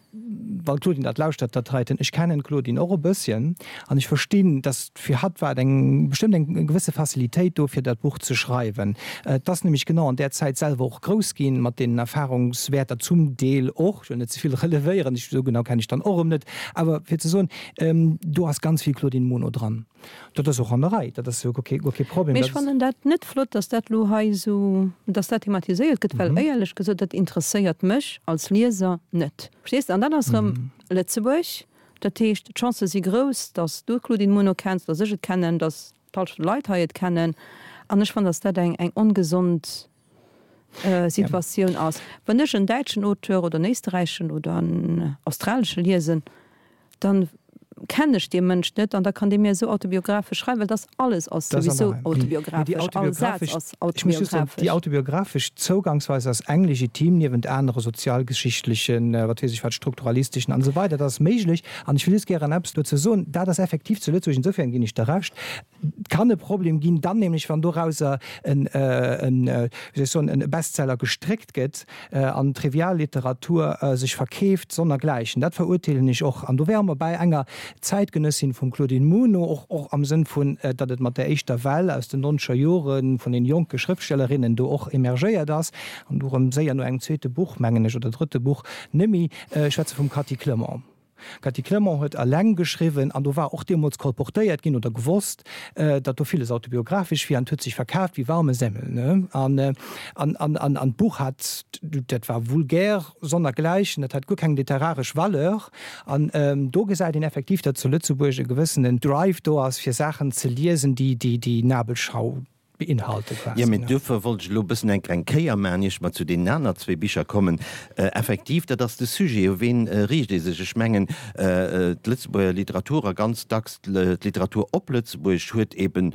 wann d'Claudine dat lauschtert, dat heiten, ech kennen d'Claudine och e bësschen an ech verstinn, dass fir hatt war et eng bestëmmt eng gewësse Facilitéit do, fir dat Buch ze schreiwen. Et ass nämlech genau an där Zäit selwer och grouss ginn, mat deenen Erfahrungswäerter zum Deel och, ech wëll net ze vill relevéieren, ech, esou genau kennen ech dann och erëm net, awer fir ze soen, do ass ganz vill Claudine Muno dran. Dat ass och an der Rei, dat ass jo guer kee Problem. Mee ech fannen dat net flott, dass dat elo hei esou, dass dat thematiséiert gëtt, well éierlech gesot, dat interesséiert mech als Lieser net. Verstees de? An dann ass erëm Lëtzebuerg. Dat heescht, d'Chancë si grouss, datt s du d'Claudine Muno kenns, datt ech et kennen, datt d'Hallschent vun de Leit hei et kennen. An ech fannen, datt dat eng eng ongesond Situatioun ass. Wann ech en däitschen Auteur oder en éisterräichen oder en australesche liesen, dann kennen ech dee Mënsch net an da kann dee mir esou autobiographesch schreiwen, well dass alles ass souwisou autobiographesch, all Saz ass autobiographesch. Déi autobiographesch Zougangsweis ass eng legitim, niewent anere sozialgeschichtlechen, wat weess ech wat, strukturalisteschen an esou weider. Dat ass méiglech an ech wëll just gären eppes dozou soen, dat ass effektiv zu Lëtzebuerg, insofern ginn ech der Recht, kann e Problem ginn, dann nämlech wann dorauser en, wéi soll ech soen, e Bestseller gestréckt gëtt an Trivialliteratur sech verkeeft sonnergläichen. Dat verurteelen ech och. An do wäre mer bäi enger Zäitgenëssin vum Claudine Muno, och och am Sënn vun, datt et mat där éischter Well aus den nonzeger Jore vun den jonke Schrëftstellerinnen do och emergéiert ass an du erëm séier no engem zweete Buch, mengen ech, oder drëtte Buch nëmmi, ech schwätze vum Cathy Clement. D'Cathy Clement huet eleng geschriwwen an do war och deemools kolportéiert ginn oder gewosst, datt do villes autobiographesch wier an et huet sech verkaaft wéi warme Semmel. An, an, an, an d'Buch hat, dat war vulgär sonnergläichen, dat hat guer keng literaresch Valeur. An do gesäit een effektiv, datt zu Lëtzebuerg e gewëssenen Drive do ass, fir Saachen ze liesen, déi, déi, déi Nabelschau beinhalte quasi. Jo, mee duerfir wollt ech elo e bëssen eng kleng Kéier maachen, ier ech mer zu deenen aner zwee Bicher kommen. Effektiv, dat ass de Sujet, u ween riicht ee sech? Ech mengen, d'Lëtzebuerger Literatur a ganz dacks d'Literatur op Lëtzebuergesch huet eeben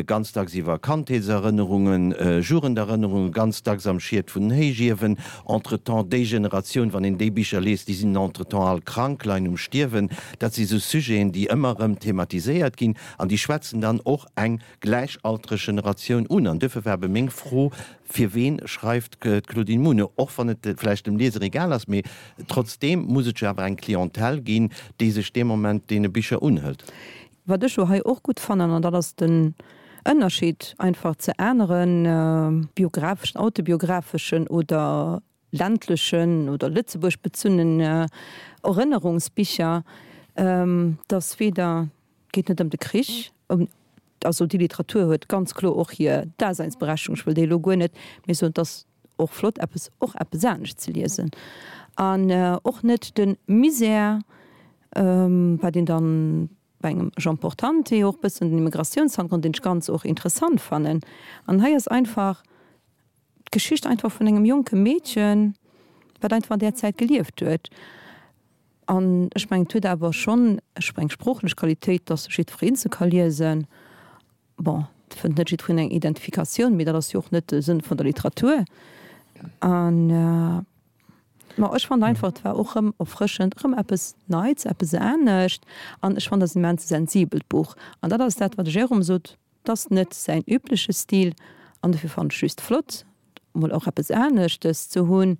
ganz dacks iwwer Kandheetserënnerungen, Jugenderënnerungen, ganz dacks am Schiet vun den Héichiewen. Entretemps, déi Generatioun, wann een déi Bicher liest, déi sinn entretemps all krank, leien um Stierwen. Dat si sou Sujeten, déi ëmmer erëm thematiséiert ginn an déi schwätzen dann och eng gläichaltreg Generatioun un. An duerfir war ebe meng Fro, Fir ween schreift d'Claudine Muno? Och wann et vläicht dem Lieser egal ass, mee trotzdeem muss et jo awer eng Clientèle ginn, déi sech dee Moment deene Bicher unhëlt. Wat ech jo hei och gutt fannen, an dat ass den Ënnerscheed einfach ze anere biographeschen, autobiographeschen oder ländlechen oder Lëtzebuerg bezunnen Erënnerungsbicher, dass weder, et geet net ëm de Krich, ëm, also déi Literatur huet ganz kloer och hir Daseinsberechtigung, ech wëll déi elo guer net, mee soen, et ass och flott eppes, och eppes anescht ze liesen an och net de Misär, wat een dann bei engem Jean Portante och bëssen den Immigratiounshannergrond, deen ech ganz och interessant fannen. An hei ass einfach d'Geschicht einfach vun engem jonke Meedchen, wat einfach an där Zäit gelieft huet. An ech mengen, et huet awer schonn eng sproochlech Qualitéit, dass jiddwereen se ka liesen. Bon, et fënnt net jiddwereen eng Identifikatioun, mee dat ass jo och net de Sënn vun der Literatur. An, ma ech fand einfach, et war och erëm erfrëschend, erëm eppes Neits, eppes anescht. An ech fand, dat ass en immens sensibelt Buch. An dat ass dat, wat de Jérôme sot, 't ass net säin übleche Stil an dofir fannen ech just flott mol och eppes aneschtes ze hunn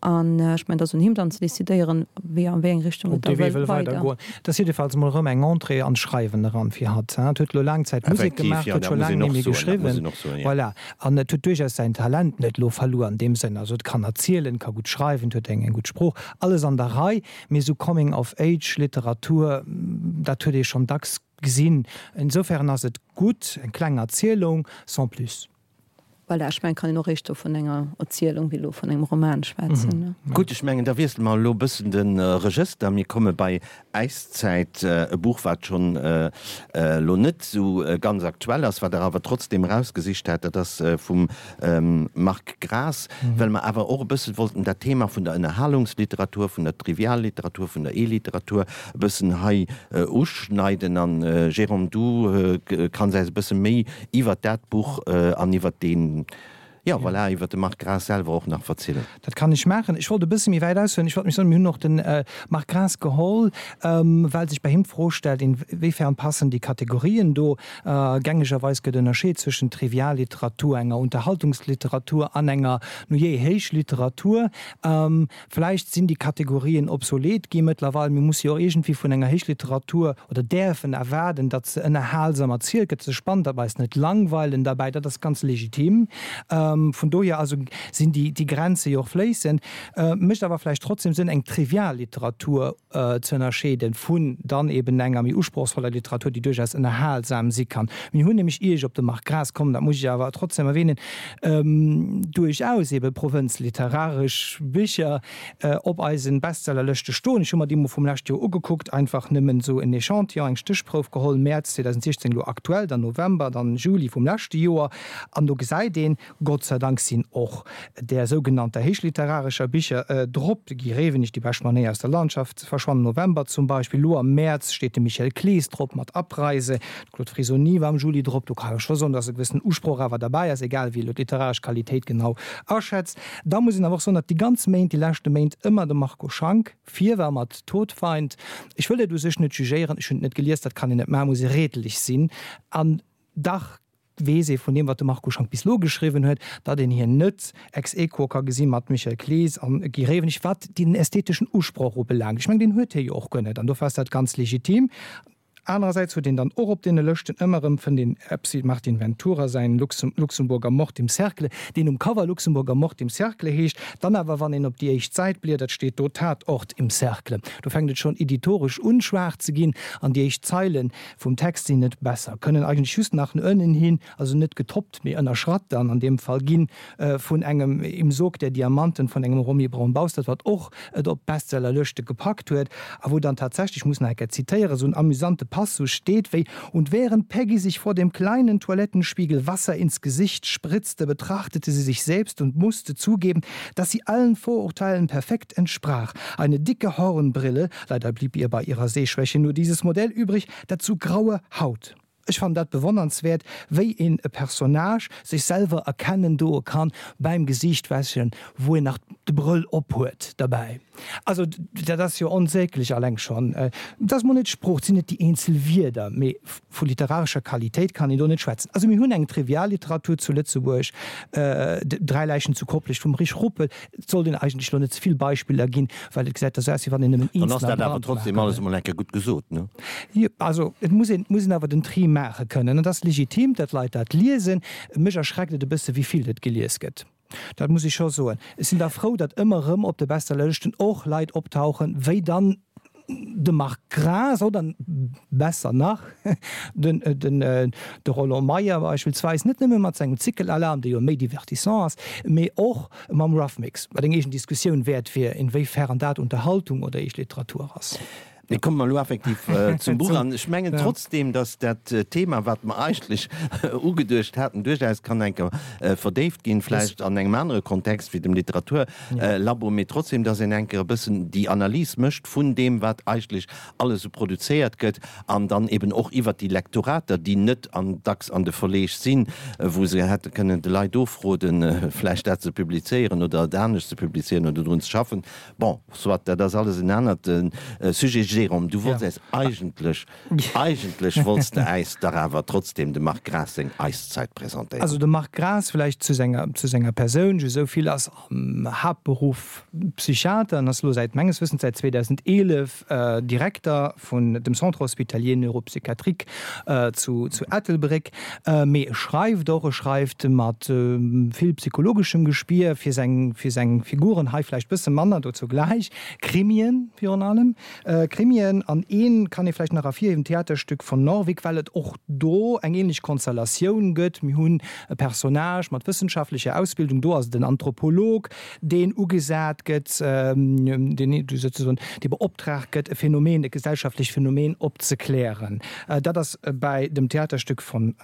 an ech mengen et ass un him dann ze decidéieren wéi an wéi eng Richtung et da wëll weider. Et ass jiddefalls mol erëm eng Entrée an d'Schreiwen eran fir hatt. Et huet elo laang Zäit Musek gemaach, huet scho laang net méi geschriwwen, voilà, an et huet duerchaus säin Talent net elo verluer an deem Sënn. Also et kann erzielen, ka gutt schreiwen, et huet eng gutt Sprooch, alles an der Rei, mee esou Coming of Age Literatur, dat huet ee schonn dacks Gesinn. Insofern ass et gutt, eng kleng Erzielung, sans plus. Voilà, ech mengen, et kann een och éischter vun enger Erzielung wéi elo vun engem Roman schwätzen. Gutt, ech mengen, da wiessele mer elo e bëssen de Regëster. Mir komme bei Äiszäit, e Buch, wat schonn elo net esou ganz aktuell ass, wat Der awer trotzdeem erausgesicht hat. Dat ass vum Marc Graas, well mer awer och e bësse wollten dat Thema vun der Ënnerhalungsliteratur, vun der Trivialliteratur, vun der E-Literatur e bëssen hei uschneiden. An Jérôme, du kanns äis e bësse méi iwwert dat Buch an iwwert deen, jo voilà, iwwert de Marc Graas selwer och nach verzielen. Dat kann ech maachen. Ech wollt e bësse méi wäit aushuelen. Ech wollt mech soen, mir hunn och de Marc Graas geholl, well sech bei him d'Fro stellt, inwiefern passen déi Kategorien do. Gängegerweis gëtt ënnerscheet zwëschen Trivialliteratur, enger Unterhaltungsliteratur an enger, nujee, Héichliteratur. Vläicht sinn déi Kategorien obsolet gi mëttlerweil. Mir musse jo och iergendwéi vun enger Héichliteratur oder däerfen erwaarden, datt se ënnerhalsam erzielt gëtt, se spannend, datt mer eis net langweilen derbäi. Dat ass ganz legitim. Vun dohier also sinn déi Grenze jo och fléissend. Mécht awer vläicht trotzdem Sënn, eng Trivialliteratur ze ënnerscheeden vun dann eben enger méi usprochsvoller Literatur, déi duerchaus ënnerhalsam si kann. Mir hunn nämlech, ier ech op de Marc Graas kommen, dat muss ech awer trotzdem erwähnen, duerchaus ebe provënzliteraresch Bicher op eisen Bestsellerlëschte stoen. Ech hu mer déi mol vum leschte Joer ugekuckt, einfach nëmmen esou en Echantillon, eng Stéchprouf geholl, Mäerz 2016 elo aktuell, dann November, dann Juli vum leschte Joer, an do gesäit een, Gott sei Dank sinn och där sougenannter héichliterarescher Bicher drop, de Guy Rewenig, Die beste Manéier aus der Landschaft ze verschwannen, November zum Beispill. Elo am Mäerz steet de Michel Clees drop mat Abreise, de Claude Frisoni war am Juli drop. Do kann ee scho soen, datt e gewëssenen Usproch awer derbäi ass, egal wéi ee elo d'literaresch Qualitéit genau aschätzt. Da muss een awer och soen, datt déi ganz Méint, déi leschte Méint ëmmer de Marco Schank vir war mat Todfeind. Ech wëll dat u sech net jugéieren, ech hunn et net gelies, dat kann een net maachen, muss ee redelech sinn an dach weess ee vun deem, wat de Marco Schank bis elo geschriwwen huet, datt een hien net ex aequo ka gesi mat Michel Clees an Guy Rewenig, wat den ästheteschen Usproch ubelaangt. Ech mengen, deen huet hie jo och guer net, an dofir ass dat ganz legitim. Anerersäits huet een dann och op deene Lëschten ëmmer erëm, fënnt een eppes wéi Martin Ventura säin Luxemburger Mord im Cercle, deen um Cover Luxemburger Mord im Cercle heescht, dann awer, wann een op déi éischt Säit bliedert, steet do Tatort im Cercle. Do fänkt et schonn editoresch un, schwaach ze ginn, an déi éischt Zeilen vum Text sinn net besser, kënnen eigentlech just nach no ënnen hin, also net getoppt, mee ënnerschratt dann an deem Fall ginn vun engem Im Sog der Diamanten vun engem Romy Braun-Baustert, wat och et op d'Bestsellerlëschte gepackt huet a wou dann tatsächlech, ech muss nach eng Kéier zitéieren, esou en amüsante Passus steet wéi, Und während Peggy sich vor dem kleinen Toilettenspiegel Wasser ins Gesicht spritzte, betrachtete sie sich selbst und musste zugeben, dass sie allen Vorurteilen perfekt entsprach. Eine dicke Hornbrille, Leider blieb ihr bei ihrer Sehschwäche nur dieses Modell übrig, dazu graue Haut. Ech fannen dat bewonnernswäert, wéi een e Personnage sech selwer erkennen doe kann beim Gesiichtwäschen, wou een nach de Brëll ophuet derbäi. Also dat ass jo onsäglech alleng schonn. Et ass mol net d'Sprooch, et sinn net déi eenzel Wierder, mee vu literarescher Qualitéit kann een do net schwätzen. Also mir hunn eng Trivialliteratur zu Lëtzebuerg, Dräi Läichen zu Koplescht vum Rich Ruppel, Et sollt een eigentlech elo net ze vill Beispiller ginn, well et gesäit da sou aus, wéi wann een nëmmen Dann ass eenzeler dat awer trotzdem brandmarke alles emol eng Kéier gutt gesot, ne? Jo, also et muss een, muss een awer den Tri maache kënnen. Et ass legitim, datt Leit dat liesen. Mech erschreckt et e bësse wéi vill et gelies gëtt. Dat muss ech scho soen. Ech sinn da frou, datt ëmmer erëm op de Bestsellerlëschten och Leit optauchen, wéi dann de Marc Graas oder besser nach den de Roland Meyer beispillsweis, net nëmme mat sengem Zickelalarm, dee jo méi divertissant ass, mee och mam Rough Mix, wat eng eegen Diskussioun wäert wier, inwéifern dat Unterhaltung oder eescht Literatur ass. Mee komme mer elo effektiv zum Buch. An ech mengen trotzdeem, datt dat Thema, wat mer eigentlech ugeduecht haten, duerchaus kann eng Kéier verdéift ginn, vläicht an engem anere Kontext wéi dem Literaturlabo, mee trotzdem, dass een eng Kéier e bëssen déi Analys mécht vun deem, wat eigentlech alles esou produzéiert gëtt, an dann eben och iwwert déi Lektorater, déi net an dacks an de Verleeg sinn, wou se hätte kënnen de Leit ofroden, vläicht dat ze publizéieren oder et anescht ze publizéieren oder drun ze schaffen. Bon, soit, dat ass alles en anert Sujet. Jérôme, du wollts äis eigentlech Eigentlech wollts de äis dach awer trotzdem dem Marc Graas seng Eiszeit presentéieren. Also de Marc Graas, vläicht zu senger, zu senger Persoun just esou vill, ass am Haaptberuff Psychiater an ass elo säit, menges Wëssens säit 2011 Direkter vun dem Centre hospitalier neuropsychiatrique zu, zu Ettelbréck. Mee e schreift och, e schreift mat vill psychologeschem Gespier fir seng, fir seng Figuren, hei vläicht bësse manner, dozou gläich, Krimien virun allem. Krimien an een kann ee vläicht nach ervirhiewen, d'Theaterstück von Norvik, well et och do eng ähnlech Konstellatioun gëtt. Mir hunn e Personnage mat wëssenschaftlecher Ausbildung, do ass et en Anthropolog, deen ugesat gëtt, deen souzesoen dee beoptraagt gëtt, e Phänomen, e gesellschaftlecht Phänomen opzeklären. Dat ass bäi dem Theaterstück von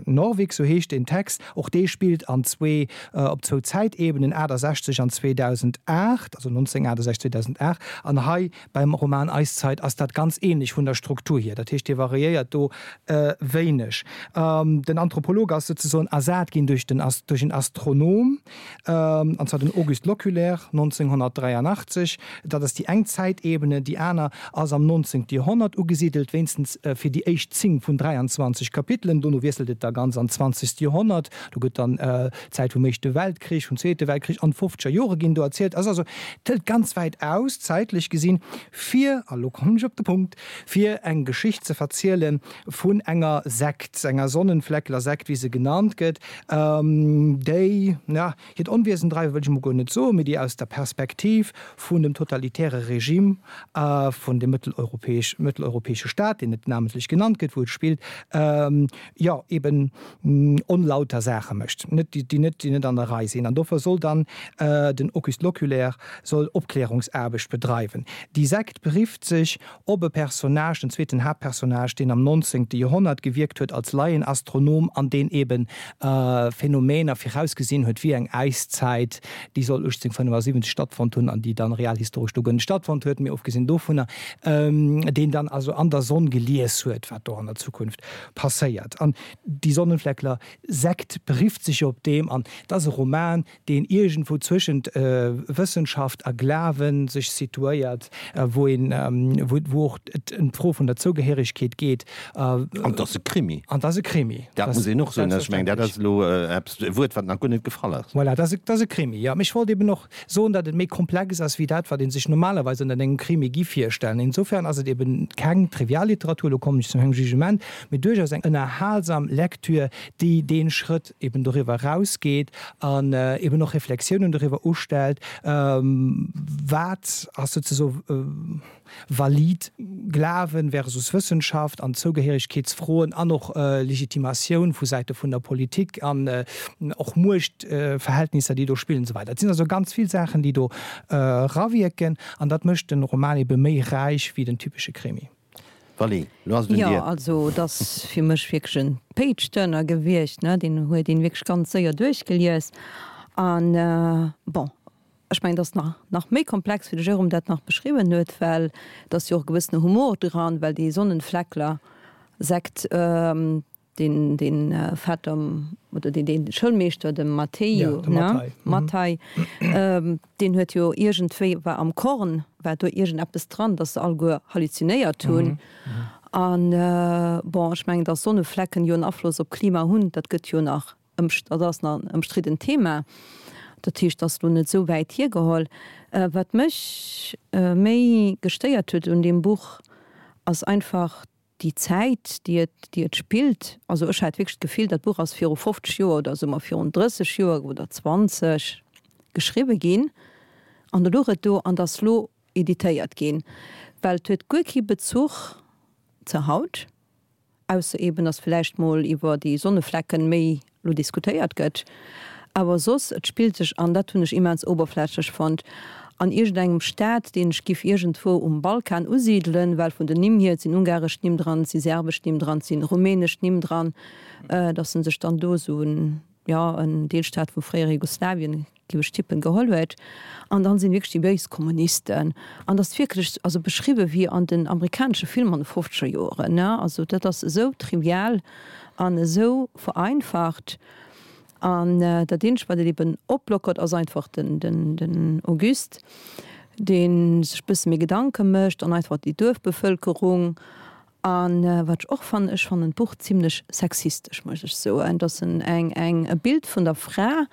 Norvik, sou heescht deen Text. Och dee spillt an zwee, op zwou Zäitebenen, 68 an 2008, also 1968, 2008. An hei beim Roman Eiszeit ass dat ganz ähnlech vun der Struktur hier. Dat heescht, dee variéiert do wéineg. Den Anthropolog ass souzesoen ersat ginn duerch den, duerch en Astronom, an zwar den Auguste Loculaire 1983. Dat ass déi eng Zäitebene. Déi aner ass am 19. Joerhonnert ugesidelt, wéinstens fir déi éischt 10 vun 23 Kapitelen. Dono wiesselt et da ganz an d'zwanzegst Joerhonnert. Do gëtt dann d'Zäit vum Éischte Weltkrich, vum Zweete Weltkrich an d'fofzeger Jore ginn do erzielt. Ass also, et hëlt ganz wäit aus, zäitlech gesinn, fir, a lo. kommen ech op de Punkt, fir eng Geschicht ze verziele vun enger Sekt, enger Sonnenfleckler-Sekt, wéi se genannt gëtt, déi, na, hiert Onwiesen dreiwen, wëll ech emol guer net soen, mee déi aus der Perspektiv vun dem totalitäre Regime vun dem mëtteleuropäesch, mëtteleuropäesche Staat, deen net namentlech genannt gëtt, wou et spillt, jo, eben onlauter Saache mécht, net, déi net, déi net an der Rei sinn. An dofir soll dann den Auguste Loculaire soll Opklärungsaarbecht bedreiwen. Déi Sekt berifft sech op e Personnage, den zweeten Haaptpersonnage, deen am 19. Joerhonnert gewierkt huet als Laienastronom an deen eben Phänomener virausgesinn huet, wéi eng Äiszäit, déi soll 1875 stattfonnt hunn an déi dann realhistoresch do guer net stattfonnt huet, mee ofgesinn dovunner, deen dann also an der Sonn gelies huet, wat do an der Zukunft passéiert. An déi Sonnenfleckler Sekt berifft sech jo op deem an et ass e Roman, deen iergendwou zwëschent Wëssenschaft a Glawen sech situéiert, wou een, wou och et ëm d'Fro vun der Zougehéiregkeet geet. An et ass e Krimi. An et ass e Krimi. Dat muss een och soen. Ech mengen, dat ass elo eppes, e Wuert, wat nach guer net gefall ass. Voilà, dat ass e Krimi, jo. Mee ech wollt eben och soen, datt et méi komplex ass wéi dat, wat ee sech normalerweis ënnert engem Krimi gi virstellen. Insofern ass et eben keng Trivialliteratur, elo kommen ech zu mengem Jugement, mee duerchaus eng ënnerhalsam Lektür, déi dee Schrëtt eben doriwwer erausgeet an eben och Reflexiounen doriwwer ustellt, wat ass souzesoe valid Glawen versus Wëssenschaft an Zougehéiregkeetsfroen an och Legitimatioun vu Säite vun der Politik an och Muechtverhältnisser, déi do spillen an esou weider. Et sinn also ganz vill Saachen, déi do erawierken an dat mécht den Roman ebe méi räich wéi den typesche Krimi. Vally, lo ass et un dir. Jo, also et ass fir mech wierklech en Page-Turner gewiescht, ne, deen huet een wierklech ganz séier duerchgelies an bon, ech mengen, et ass nach nach méi komplex wéi de Jérôme dat nach beschriwwen huet, well et ass jo och e gewëssene Humor dran, well déi Sonnenfleckler-Sekt, Deen deen Vetter oder deen deen Schoulmeeschter, de Matteo, ne? Matthei, deen huet jo iergendwéi, war am Korn, war do iergendeppes dran, datt se alleguer halluzinéiert hunn. An bon, ech mengen, datt Sonneflecken jo en Afloss op d'Klima hunn, dat gëtt jo nach ëmst, dat ass nach en ëmstriddent Thema. Dat heescht, dat ass elo net esou wäit hiergeholl. Wat mech méi gestéiert huet un deem Buch, ass einfach déi Zäit, déi et, déi et spillt, also ech hat wierklech d'Gefill, dat Buch ass viru 50 Joer oder soe mer virun 30 Joer oder 20 geschriwwe ginn an da louch et do an ass lo editéiert ginn, well et huet guer kee Bezuch zu haut, ausser eben, datt vläicht mol iwwer déi Sonneflecken méi lo diskutéiert gëtt, awer soss, et spillt sech, an dat hunn ech immens oberflächlech fonnt, an iergendengem Staat, deen ech giff iergendwou um Balkan usidelen, well vun den Nimm hier, et sinn ungaresch Nimm dran, et si serbesch Nimm dran, et si rumänesch Nimm dran, datt en sech dann do esou en, jo, en Deelstaat vum fréiere Jugoslawien, giff ech tippen, geholl huet. An dann sinn wierklech déi béis Kommunisten. An dat ass wierklech, also beschriwwen wéi an den amerikanesche Filmer an de fofzeger Joeren, ne? Also dat ass esou trivial an esou vereinfacht. An dat eenzegt wat et eben oplockert ass einfach den, den, den Auguste, dee sech bësse méi Gedanke mécht an einfach déi Duerfbevëlkerung. A wat ech och fannen, ech fannen d'Buch zimlech sexistesch, muss ech soen, dass en eng, eng, e Bild vun der Fra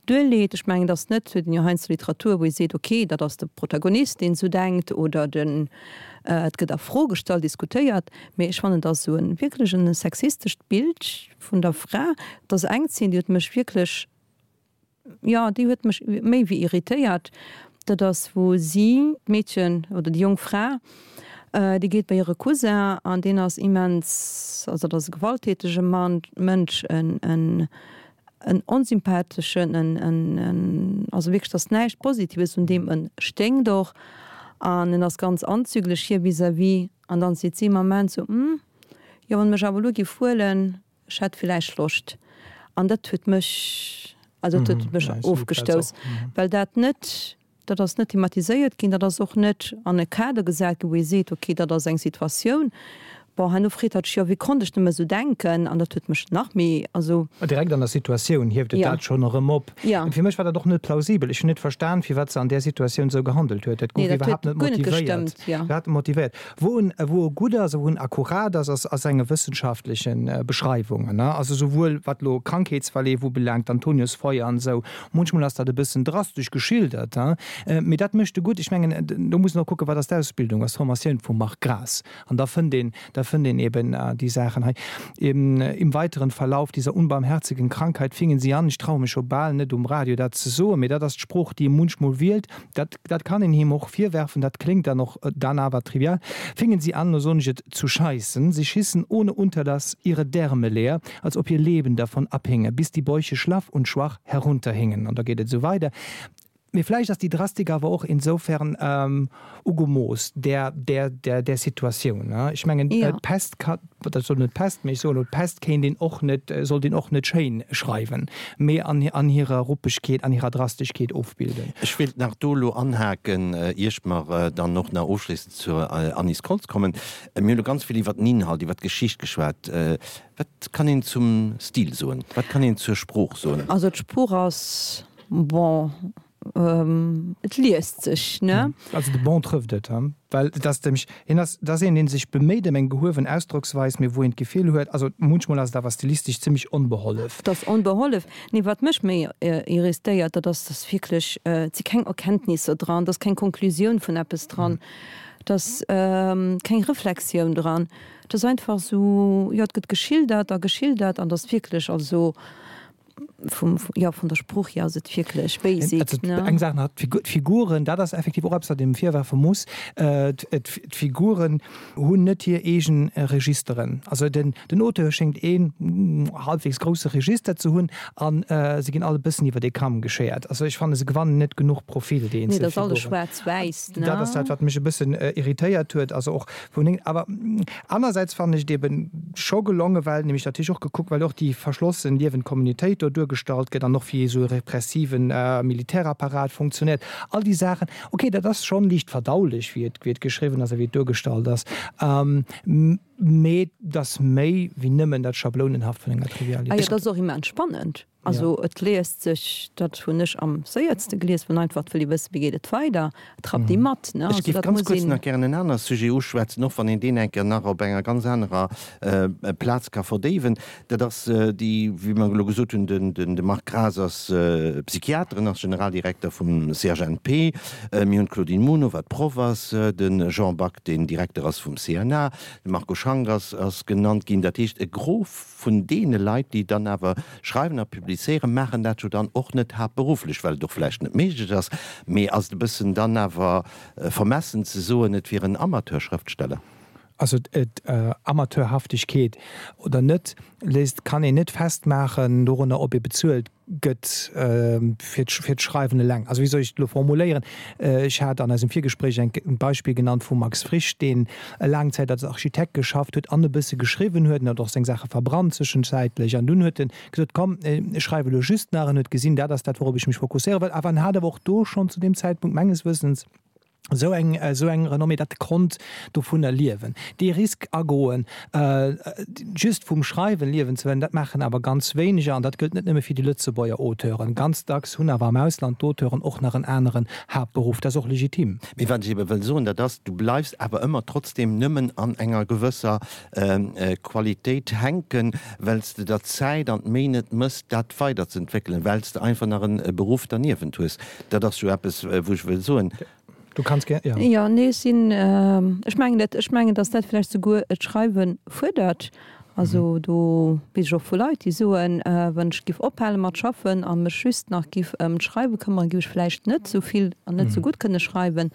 duerleet. Ech mengen, dass net, huet een jo heiansdo Literatur, wou ee seet, ok, dat ass de Protagonist, deen esou denkt, oder den, et gëtt a Fro gestallt, diskutéiert. Mee ech fannen, dass esou e wierklech e sexistescht Bild vun der Fra, et ass eng Zeen, déi huet mech wierklech, Jo, déi huet mech méi wéi irritéiert. Dat ass wou si, d'Meedchen oder déi jonk Fra, déi geet bei hire Cousin an deen ass immens, also dat ass e gewalttätege Mann, Mënsch, en, en, en onsympatheschen, en, en, en, also wierklech, et ass näischt Positives un deem, en sténkt och an en ass ganz anzüglech hir vis-à-vis. An dann seet si am Ament sou, Hm, jo, wann e mech awer elo géif huelen, Ech hätt villäicht Loscht. An dat huet mech, also dat huet mech ofgestouss, well dat net, dat ass net thematiséiert ginn, dat ass och net an e Kader gesat ginn, wou ee seet, okay, dat ass eng Situatioun. Bon, herno freet hatt sech, jo, wéi konnt ech nëmme esou denken? An dat huet mech nach méi, also. Direkt an der Situatioun hieft et dat schonn erëm op. Fir mech war dat och net plausibel. Ech hunn net verstan, firwat se an där Situatioun esou gehandelt huet. Dat gouf iwwerhaapt net motivéiert. Iwwerhaapt net motivéiert. Wou en, wou e gutt ass a wou en akkurat ass, ass a senge wëssenschaftleche Beschreiwungen. Also souwuel wat elo Krankheetsverleef ubelaangt, Antoniusfeuer an esou. Munchmol ass dat e bëssen drastesch geschildert, mee dat mécht e gutt. Ech mengen, do muss een och kucken, wat ass d'Ausbildung, ass d'Formatioun vum Marc Graas. An da fënnt een, da fënnt een eben déi Saachen hei. Im weiteren Verlauf dieser unbarmherzigen Krankheit fingen sie an, ech traue mech scho bal net um Radio dat ze soen, mee dat ass d'Sprooch, déi e munchmol wielt, dat, dat kann een him och virwerfen, dat kléngt dann och dann awer trivial, fingen sie an, lo soen ech et, zu scheißen. Sie schissen ohne Unterlass ihre Därme leer, als ob ihr Leben davon abhinge, bis die Bäuche schlaff und schwach herunterhingen. An da geet et esou weider. Mee vläicht ass déi Drastik awer och insofern ugemooss där, där, där, där Situatioun. Ech mengen, d'Pest ka, dat soll net d'Pest, mee ech soen elo, d'Pest kéint een och net, sollt een och net schéin schreiwen, mee an, an hirer Ruppegkeet, an hirer Drasteschkeet ofbilden. Ech wéilt nach do elo anhaken, ier mer dann och nach ofschléissend zur Anise Koltz kommen. Mir hunn elo ganz vill iwwert den Inhalt, iwwert d'Geschicht geschwat. Wat kann een zum Stil soen? Wat kann een zur Sprooch soen? Also d'Sprooch ass Bon, et liest sech, ne? Also de bon trëfft et, well et ass nämlech, hien ass, et ass een, dee sech beméit ëm eng gehuewen Ausdrocksweis, mee wou een d'Gefill huet, also munchmol ass et awer stilistesch zimmlech onbehollef. Et ass onbehollef. Nee, wat mech méi irristéiert, dat ass, dass wierklech, et si keng Erkenntnisser dran, et ass keng Konklusioun vun eppes dran, et ass keng Reflexioun dran, et ass einfach esou, jo, et gëtt geschildert a geschildert an et ass wierklech, also Vum, jo, vun der Sprooch hier ass et wierklech basic, ne? Eng Saach nach, d'Figuren, dat ass effektiv och eppes, wat een em virwerfe muss, d'Figuren hunn net hir eegen Registeren. Also den Auteur schéngt een halbwegs grousse Register ze hunn a se ginn all e bëssen iwwer ee Kamm geschéiert. Also ech fannen, se gewannen net genuch Profil, déi eenzel Figuren. Nee, dat ass alles schwaarz-wäiss, ne? Dat ass dat, wat mech e bëssen irritéiert huet. Also och vun, awer Anersäits fannen ech et eben scho gelongen, well nämlech natierlech och gekuckt, well och déi verschlossen liewend Communautéit do duergestallt gëtt an och wéi esou e repressiven Militärapparat funktionéiert, all déi Saachen. Ok, dat ass schonn liicht verdaulech, wéi et, wéi et geschriwwen ass a wéi et duergestallt ass, mee et ass méi wéi nëmmen dat Schablounenhaft vun enger Trivialitéit. Ah jo, dat ass och immens spannend. Also et liest sech, dat hunn ech am séiertste gelies, wann einfach wëll ee wëssen, wéi geet et weider, et rappt ee mat, ne? Ech géif ganz kuerz nach gären en aner Sujet uschwätzen, och wann een deen eng Kéier nach op enger ganz anerer Plaz ka verdéiwen. Dat ass déi, wéi mer elo gesot hunn, de Marc Graas ass Psychiater, en ass Generaldirekter vum CHNP. Mir hunn d'Claudine Muno, wat Proff ass, de Jean Back, deen Direkter ass vum CNA, de Marco Schank ass genannt ginn. Dat heescht, e Gros vun deene Leit, déi dann awer schreiwen a publizéieren, maachen dat jo dann och net haaptberufflech, well et och vläicht net méiglech ass. Mee ass et e bëssen dann awer vermessen ze soen, et wier en Amateurschrëftsteller? Also et, Amateurhaftegkeet oder net, léisst, kann een net festmaachen dorunner, ob ee bezuelt gëtt fir d'Schreiwen eleng. Also wéi soll ech et elo formuléieren? Ech hat an eisem Virgespréich eng e Beispill genannt vum Max Frisch, deen laang Zäit als Architekt geschafft huet an e bësse geschriwwen huet. En huet och seng Saache verbrannt zwischenzäitlech. An dunn huet en gesot, komm, ech schreiwe elo just nach. En huet gesinn, dat ass dat, wourop ech mech fokusséiere wëll. Awer en hat awer och do schonn zu deem Zäitpunkt menges Wëssens, esou eng, esou eng Renommée, datt e konnt dovunner liewen. Dee Risk agoen, just vum Schreiwen liewen ze wëllen, dat maachen awer ganz wéineger. An dat gëllt net nëmme fir déi Lëtzebuerger Auteuren. Ganz dacks hunn awer am Ausland d'Auteuren och nach en aneren Haaptberuff. Dat ass och legitim. Mee wat ech ebe wëll soen, dat ass, du bleifs awer ëmmer trotzdem nëmmen an enger gewësser Qualitéit hänken, well s de der d'Zäit an d'Méi net mëss, dat weiderzeentwéckelen, well s de einfach nach e Beruff derniewent hues. Dat ass jo eppes, wou ech wëll soen. Du kanns gär, jo. Jo, nee, ech sinn, ech mengen dat, ech mengen, datt dat vläicht souguer d'Schreiwe fuerdert. Also do weess ech och vu Leit, déi soen, wann ech giff ophale mat schaffen a mech just nach giff ëm d'Schreiwe këmmeren, giff ech vläicht net esou vill an net esou gutt kënne schreiwen.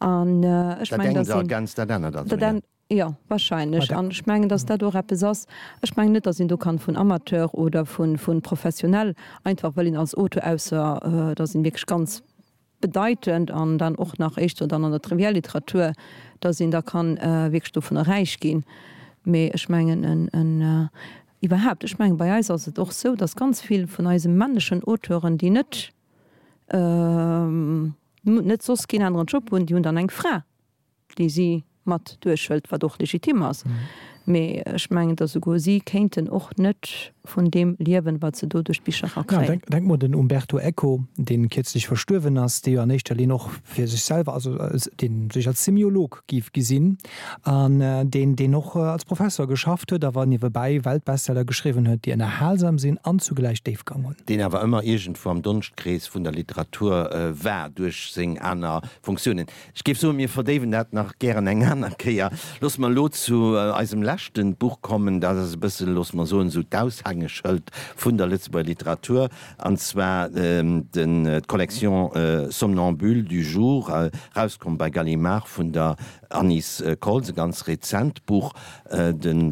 An ech Dat mengen, engt datt een, ergänzt dat anert also, dat jo. Jo, wahrscheinlech. An ech mengen, datt dat och eppes ass, ech mengen net, datt een do kann vun Amateur oder vu professionell, einfach well een als Auteur, ausser et ass een wierklech ganz bedeitend an dann och nach éischter dann an der Trivialliteratur, datt een da kann wierklech dovunner räich ginn. Mee ech mengen en, iwwerhaapt, ech mengen bei eis ass et och sou, datt ganz vill vun eise männlechen Auteuren, déi net, net soss keen aneren Job hunn, déi hunn dann eng Fra. déi si. mat duerchhëlt, wat och legitim ass. Mee ech mengen, datt esouguer si kéinten och net vun deem liewen, wat se do duerch d'Bicher erakréien. Ja, denk mol den Umberto Eco, dee kierzlech verstuerwen ass, dee jo an éischter Linn och fir sech selwer, also dee sech als Semiolog géif gesinn an deen, deen och als Professor geschafft huet, awer niewebäi Weltbestseller geschriwwen huet, déi ënnerhalsam sinn an zugläich Déifgang hunn. Deen awer ëmmer iergendwou am Donschtkrees vun der Literatur war duerch seng aner Funktiounen. Ech géif soen, mir verdéiwen dat nach gären eng aner Kéier. Loosse mer elo zu eisem leschte Buch kommen. Dat ass e bëssen, loosse mer soen, esou d'Aushängeschëld vun der Lëtzebuerger Literatur, an zwar d'Collection Somnambules du jour, erauskomm bei Gallimard vun der Anise Koltz, e ganz rezent Buch. Den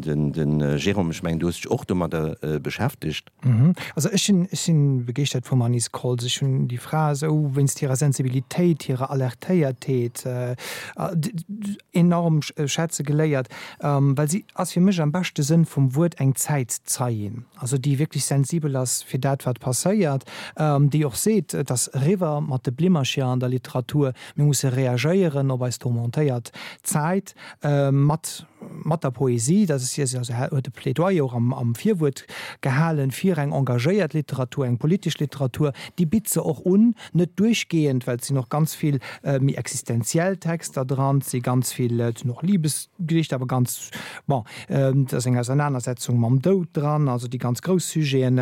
Jérôme, ech mengen, du hues dech och domadder beschäftegt. Also ech sinn, ech sinn begeeschtert vum Anise Koltz. Ech hunn déi Fra esou wéinst hirer Sensibilitéit, hirer Alertéiertheet enorm schätze geléiert, well si ass fir mech am beschte Sënn vum Wuert eng Zäitzeien, also déi wierklech sensibel ass fir dat wat passéiert, déi och seet, et ass eriwwer mat de Blimmercher an der Literatur, mir musse reagéieren op eis tourmentéiert Zäit mat mat der Poesie, dat ass hir, also huet e Plädoyer och am Virwuert gehalen fir eng engagéiert Literatur, eng politesch Literatur, déi bitt se och un, net duerchgehend, well et sinn och ganz vill méi existenziell Texter dran, et si ganz vill, et sinn och Libesgedichter, awer ganz, bon, et ass eng Ausernanersetzung mam Doud dran, also déi ganz grouss Sujeten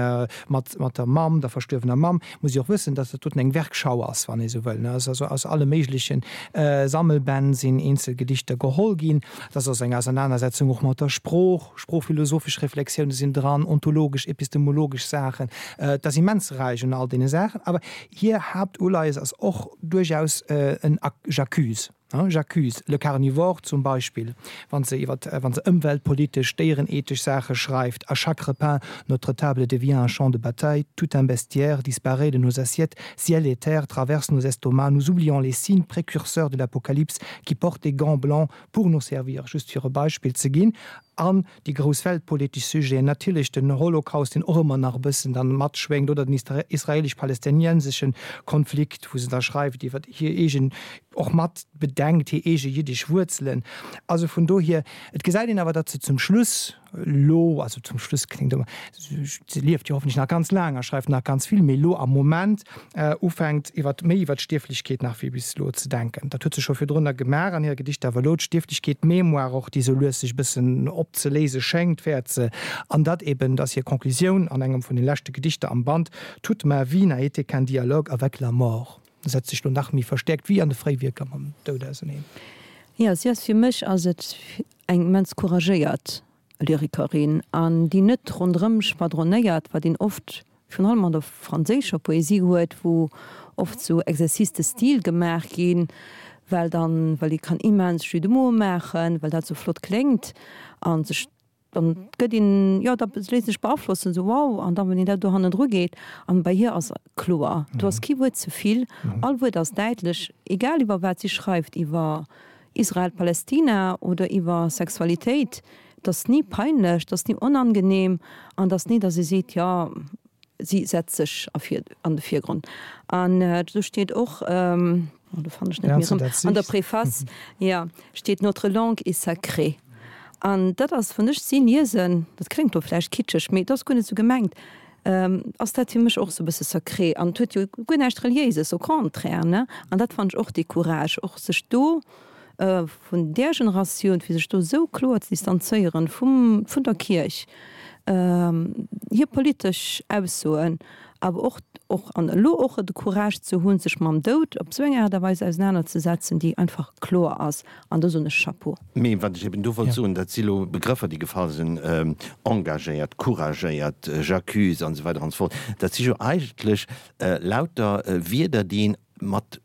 mat mat der Mamm, der verstuerwener Mamm. Muss ee och wëssen, datt dat doten eng Werkschau ass, wann ee sou wëll. Et ass also aus alle méigleche Sammelbänn sinn eenzel Gedichter geholl ginn. Et ass also eng Ausernanersetzung och mat der Sprooch, sproochphilosophesch Reflexioune sinn dran, ontologesch, epistemologesch Saachen. Et ass immens räich un all deene Saachen. Awer hir Haaptuleies ass och duerchaus en J'accuse. J'accuse le carnivore zum Beispill, wann se iwwer, wann se ëmweltpolitesch, déierenethesch Saache schreift, À chaque repas, notre table devient un champ de bataille, tout un bestiaire disparaît de nos assiettes, ciel et terre traversent nos estomacs, nous oublions les signes précurseurs de l'apocalypse qui portent des gants blancs pour nous servir, just fir e Beispill ze ginn. An déi grouss weltpolitesch Sujeten, natierlech den Holocaust, deen och ëmmer nach e bëssen dann matschwéngt, oder den israelesch-palästinenseschen Konflikt, wou se da schreift iwwer hir eegen, och mat bedenkt, hir eege jiddesch Wuerzelen. Also vun dohier, et gesäit een awer, datt se zum Schluss elo, also zum Schluss kléngt ëmmer, se lieft jo hoffentlech nach ganz laang a schreift nach ganz vill, mee elo am Moment ufänkt iwwer méi iwwer d'Stierflechkeet nach wéi bis elo ze denken. Dat huet se scho virdrunner gemaach an hire Gedichter, awer elo d'Stierflechkeet, d'Mémoire och, déi sou lues sech e bëssen opzeléise schéngt, wäert se, an dat eben, dat ass hir Conclusioun an engem vun de leschte Gedichter am Band, Toute ma vie n'a été qu'un dialogue avec la mort. Setzt sech lo nach méi verstäerkt wéi an de Fréiwierker mam Doud auseneen. Jo, si ass, fir mech ass et eng immens couragéiert Lyrikerin an déi net ronderëm schwadronéiert, wat een oft virun allem an der franséischer Poesie huet, wou oft sou Exercices de style gemaach ginn, well dann, well ee kann immens Jeux de mots maachen, well dat sou flott kléngt an sech dann gëtt een, jo, da léisst een sech beaflossen, sou wow, an dann, wann een dat do hannendru geet, an bei hir ass kloer, do ass kee Wuert ze vill, all Wuert ass däitlech, egal iwwer wat si schreift, iwwer Israel, Palästina oder iwwer Sexualitéit, et ass ni peinlech, et ass ni onangenehm an et ass ni, datt ee seet, jo, si setzt sech an de Virgrond. An do steet och, do fannen ech net méi erëm, an der Préface, jo, steet, Notre langue est sacrée. An dat ass, wann ech si liesen, dat kléngt elo vläicht kitscheg, mee et ass guer net esou gemengt, ass dat fir mech och esou e bësse sacré. An et huet jo guer näischt Reliéises, au contraire, ne? An dat fannen ech och dee Courage, och sech do vun där Generatioun, fir sech do esou kloer ze distanzéieren vum, vun der Kierch, hir politesch Aussoen, awer och, och an elo och de Courage ze hunn, sech mam Doud op esou eng Aart a Weis ausenanerzesetzen, déi einfach kloer ass. An do soen ech Chapeau. Mee wat ech eben do wollt soen, dat si lo Begrëffer, déi gefall sinn, engagéiert, couragéiert, j'accuse an esou weider an esou fort. Dat si jo eigentlech lauter Wierder, déi een mat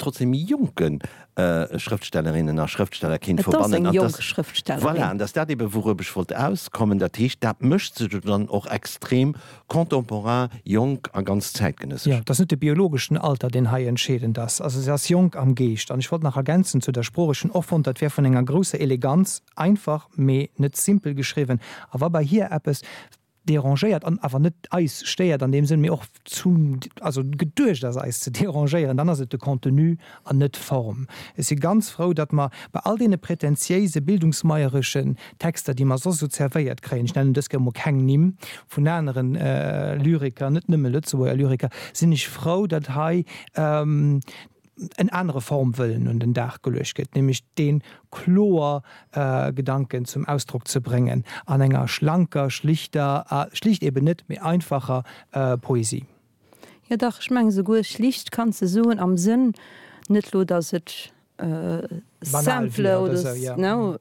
trotzdem méi jonke Schrëftstellerinnen a Schrëftsteller kéint Et ass verbannen. eng An jonk dass, Schrëftstellerin. voilà, an dass dat eben, wourob ech wollt auskommen, dat heescht, dat mécht se jo dann och extrem Contemporain, jonk a ganz zäitgenëssesch. Jo, et ass net de biologeschen Alter, deen hei entscheedend ass. Also se ass jonk am Geescht. An ech wollt nach ergänzen zu der Sprooch, ech hunn och fonnt, dat wär vun enger grousser Eleganz, einfach, mee net simpel geschriwwen. A wa bei hir eppes. derangéiert an awer net eis stéiert an deem Sënn, mee och zum, also geduecht ass eis ze derangéieren, dann ass et de Contenu an net d'Form. Ech si ganz frou, datt mer bei all deene prätentiéise bildungsmeiereschen Texter, déi mer soss esou zerwéiert kréien, ech nennen dës Kéier emol keng Nimm vun aneren Lyriker, net nëmme Lëtzebuerger Lyriker, sinn ech frou, datt hei en anere Formwëllen un den Dag geluecht gëtt, nämlech dee kloer Gedanken zum Ausdrock ze bréngen an enger schlanker, schlichter, schlicht eben net, mee einfacher Poesie. Jo dach, ech mengen esouguer schlicht kanns de soen am Sënn, net lo datt et simple oder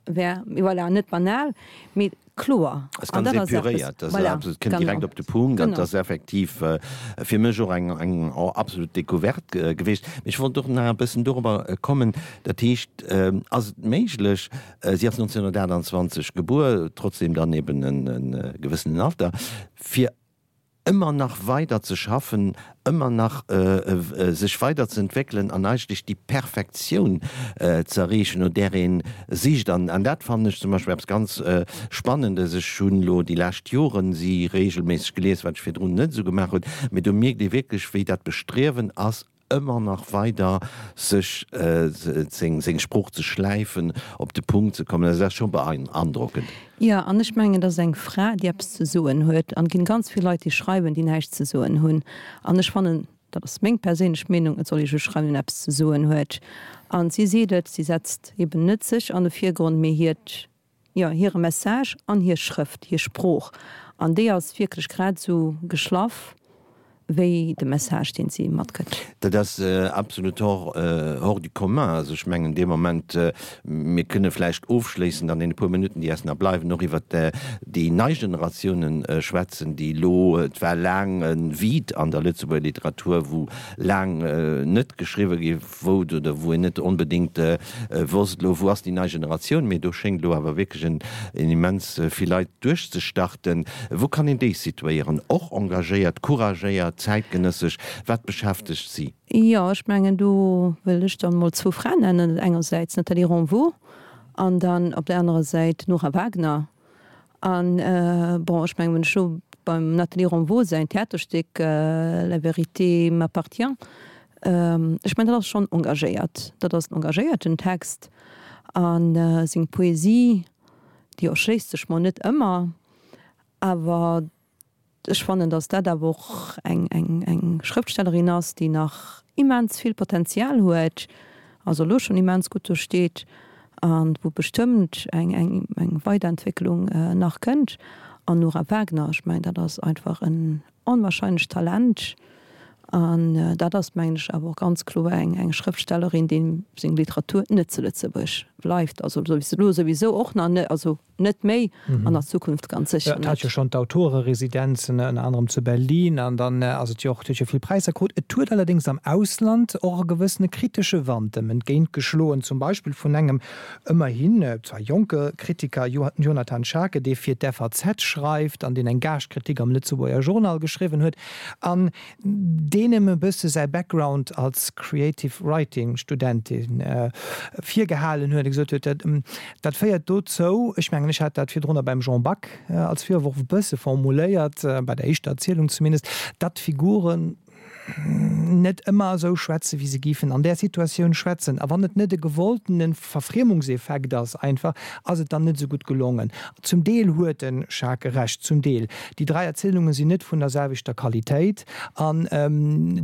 wär, mee voilà, net banal, mee kloer. Ass ganz epuréiert, ass absolut, kënnt direkt op de Punkt an ass effektiv fir mech och eng eng absolut Decouverte gewiescht. Mee ech wollt och nach e bëssen dorobber kommen, dat heescht, ass et méiglech, si ass 1928 gebuer, trotzdem dann eben e gewëssenen Alter, fir ëmmer nach weider ze schaffen, ëmmer nach sech weider ze entwéckelen an eigentlech déi Perfektioun ze erreechen, no där ee sicht. An dat fannen ech zum Beispill eppes ganz Spannendes. Ech hunn elo déi lescht Joren si reegelméisseg gelies, wat ech virdrun net esou gemaach hunn, mee do mierkt ee wierklech, wéi dat Bestriewen ass, ëmmer nach weider sech seng Sprooch ze schläifen, op de Punkt ze kommen, dat ass scho beandrockend. Jo, an ech mengen, et ass eng Fra, déi eppes ze soen huet. An et ginn ganz vill Leit, déi schreiwen, déi näischt ze soen hunn. An ech fannen, dat ass meng perséinlech Meenung, et soll ee just schreiwen, wien eppes ze soen huet. An si seet et, si setzt eben net sech an de Virgrond, mee hiert jo, hire Message an hir Schrëft, hir Sprooch, an déi ass wierklech grad esou geschlaff wéi de Message, deen si matgëtt. Dat ass absolut hors, hors du commun. Also ech mengen dee Moment, mir kënne vläicht ofschléissend an deene puer Minutten, déi eis nach bleiwen, och iwwert déi nei Generatiounen schwätzen, déi elo, et war laang e Vide an der Lëtzebuerger Literatur, wou laang net geschriwwe gi wou oder wou een net onbedéngt wosst, elo wou ass déi nei Generatioun, mee do schéngt elo awer wierklech en immens vill Leit duerchzestarten. Wou kann een déi situéieren? Och engagéiert, couragéiert, zäitgenëssesch? Wat beschäftegt si? Jo, ech mengen do wëll ech dann emol zwou Fraen nennen, engersäits d'Nathalie Ronvaux an dann op der anerer Säit d'Nora Wagner. An, bon, ech mengen, wann ech elo beim Nathalie Ronvaux säin Theaterstéck La vérité m'appartient, ech mengen, dat ass schonn engagéiert, dat ass en engagéierten Text. A seng Poesie, déi erschléisst sech mer net ëmmer, awer Ech fannen, datt dat awer och eng eng Schrëftstellerin ass, déi nach immens vill Potenzial huet, also elo schonn immens gutt do steet a wou bestëmmt eng eng eng Weiderentwécklung nach kënnt. An Nora Wagner, ech mengen, dat ass einfach en onwahrscheinlecht Talent an dat ass, mengen ech, awer och ganz kloer eng eng Schrëftstellerin, deem seng Literatur net zu Lëtzebuerg bleift, also elo souwisou och nach net, also. Net méi, an a Zukunft ganz sécher net. Et hat jo schonn d'Autoreresidenzen, ënner anerem zu Berlin, an dann ass et jo och, et huet jo vill Präisser krut. Et huet allerdéngs am Ausland och e gewëssene kritesche Wand em entgéint geschloen, zum Beispill vun engem ëmmerhin zwar jonke Kritiker, Jonathan Schaake, dee fir d'FAZ schreift an deen eng Gaascht-Kritik am Lëtzebuerger Journal geschriwwen huet an deen em e bësse säi Background als Creative Writing Studentin virgehalen huet a gesot huet, dat féiert dozou, ech mengen ech hat dat virdrunner beim Jean Back als Virworf e bësse formuléiert, bei der éischter Erzielung zumindest, datt d'Figuren net ëmmer esou schwätzen, wéi se géifen an där Situatioun schwätzen. A wann et net e gewolltene Verfriemungseffekt ass einfach, ass et dann net esou gutt gelongen. Zum Deel huet de Schaake Recht, zum Deel. Déi 3 Erzielunge sinn net vun der selwechter Qualitéit an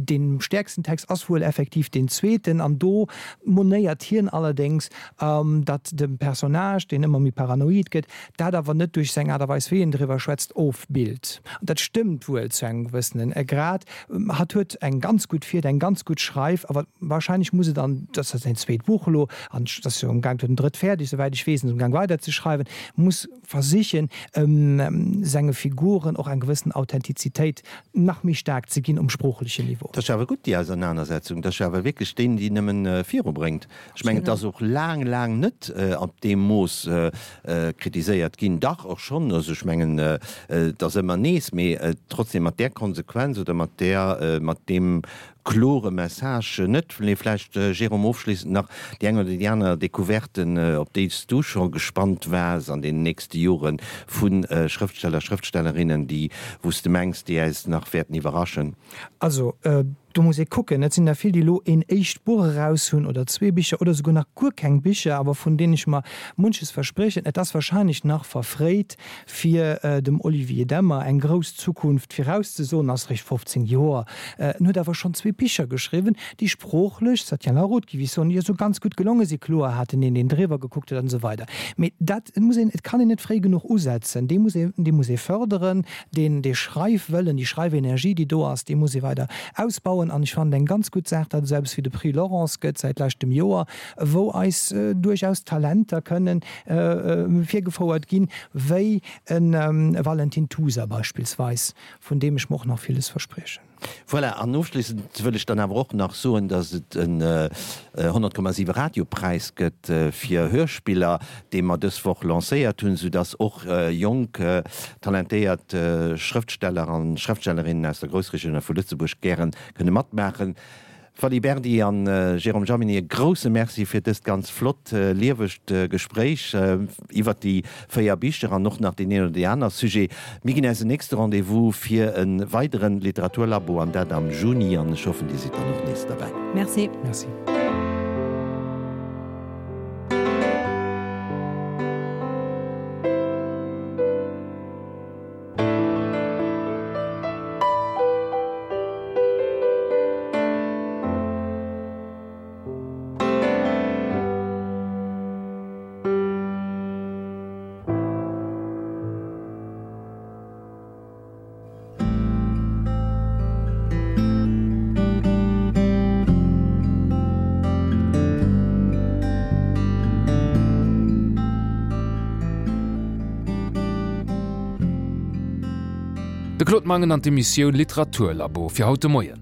dee stäerksten Text ass wuel effektiv deen zweeten an do monéiert hien allerdéngs, datt de Personnage, deen ëmmer méi paranoid gëtt, dat awer net duerch seng Aart a Weis wéi en driwwer schwätzt, ofbillt. An dat stëmmt wuel zu engem gewëssenen Grad. Hatt huet eng ganz gutt Fieder, eng ganz gutt Schreif, awer wahrscheinlech muss et an, dat ass säin zweet Buch elo, an et ass jo amgaang, huet en drëtt fäerdeg, souwäit ech weess, en ass amgaang weiderzeschreiwen, muss versichen, senge Figuren och eng gewëssen Authentizitéit nach méi staark ze ginn um sproochlechen Niveau. Dat ass jo awer gutt, déi Ausernanersetzung. Dat ass jo awer wierklech deen, déi nëmmen virubréngt. Ech mengen, et ass och laang, laang net op deem Mooss kritiséiert ginn. Dach, och schonn. Also ech mengen, et ass ëmmer nees, mee trotzdem mat där Konsequenz oder mat där, mat deem. klore Message net. Mee vläicht, Jérôme, ofschléissend nach déi eng oder déi aner Decouverte, op déi s du scho gespannt waars an deenen nächste Jore vu Schrëftsteller, Schrëftstellerinnen, déi, wou s de mengs, déi äis nach wäerten iwwerraschen? Also, do muss ee kucken. Et sinn der vill, déi elo een éischt Buch eraus hunn oder zwee Bicher oder souguer nach guer keng Bicher, awer vun deenen ech mer munches verspriechen. Et ass wahrscheinlech nach verfréit, fir dem Olivier Demmer eng grouss Zukunft virauszesoen, ass réischt 15 Joer, en huet awer schonn zwee Bicher geschriwwen, déi sproochlech, ça tient la route, géif ech soen, jo sou ganz gutt gelonge sinn. Kloer hat en een, deen driwwer gekuckt huet an esou weider. Mee dat muss een, et kann een net fréi genuch usetzen, dee muss ee, dee muss ee fërderen, deen, dee Schreifwëllen, déi Schreifenergie, déi do ass, déi muss ee weider ausbauen. An ech fannen et eng ganz gutt Saach, datt et esou eppes wéi de Prix Laurence gëtt säit leschtem Joer, wou eis duerchaus Talenter kënnen virgefouert ginn, wéi e Valentin Tusa beispillsweis, vun deem ech mer och nach villes verspriechen. Voilà, an ofschléissend wëll ech dann awer och nach soen, dass et en 100,7 Radiopräis gëtt fir Hörspiller, dee mer dës Woch lancéiert hunn, soudass och jonk, talentéiert Schrëftsteller an Schrëftstellerinnen aus der Groussregioun a vu Lëtzebuerg gäre kënne matmaachen. Fally Berdy an Jérôme Jaminet, e grousse Merci fir dëst ganz flott, liewegt Gespréich iwwert déi 4 Bicher an och nach deen een oder déi aner Sujet. Mir ginn äis en nächste Rendez-vous fir e weideren Literaturlabo an dat am Juni an ech hoffen, Dir sidd dann och nees derbäi. Merci. Merci. De Claude Mangen an d'Emissioun Literaturlabo fir haut de Moien.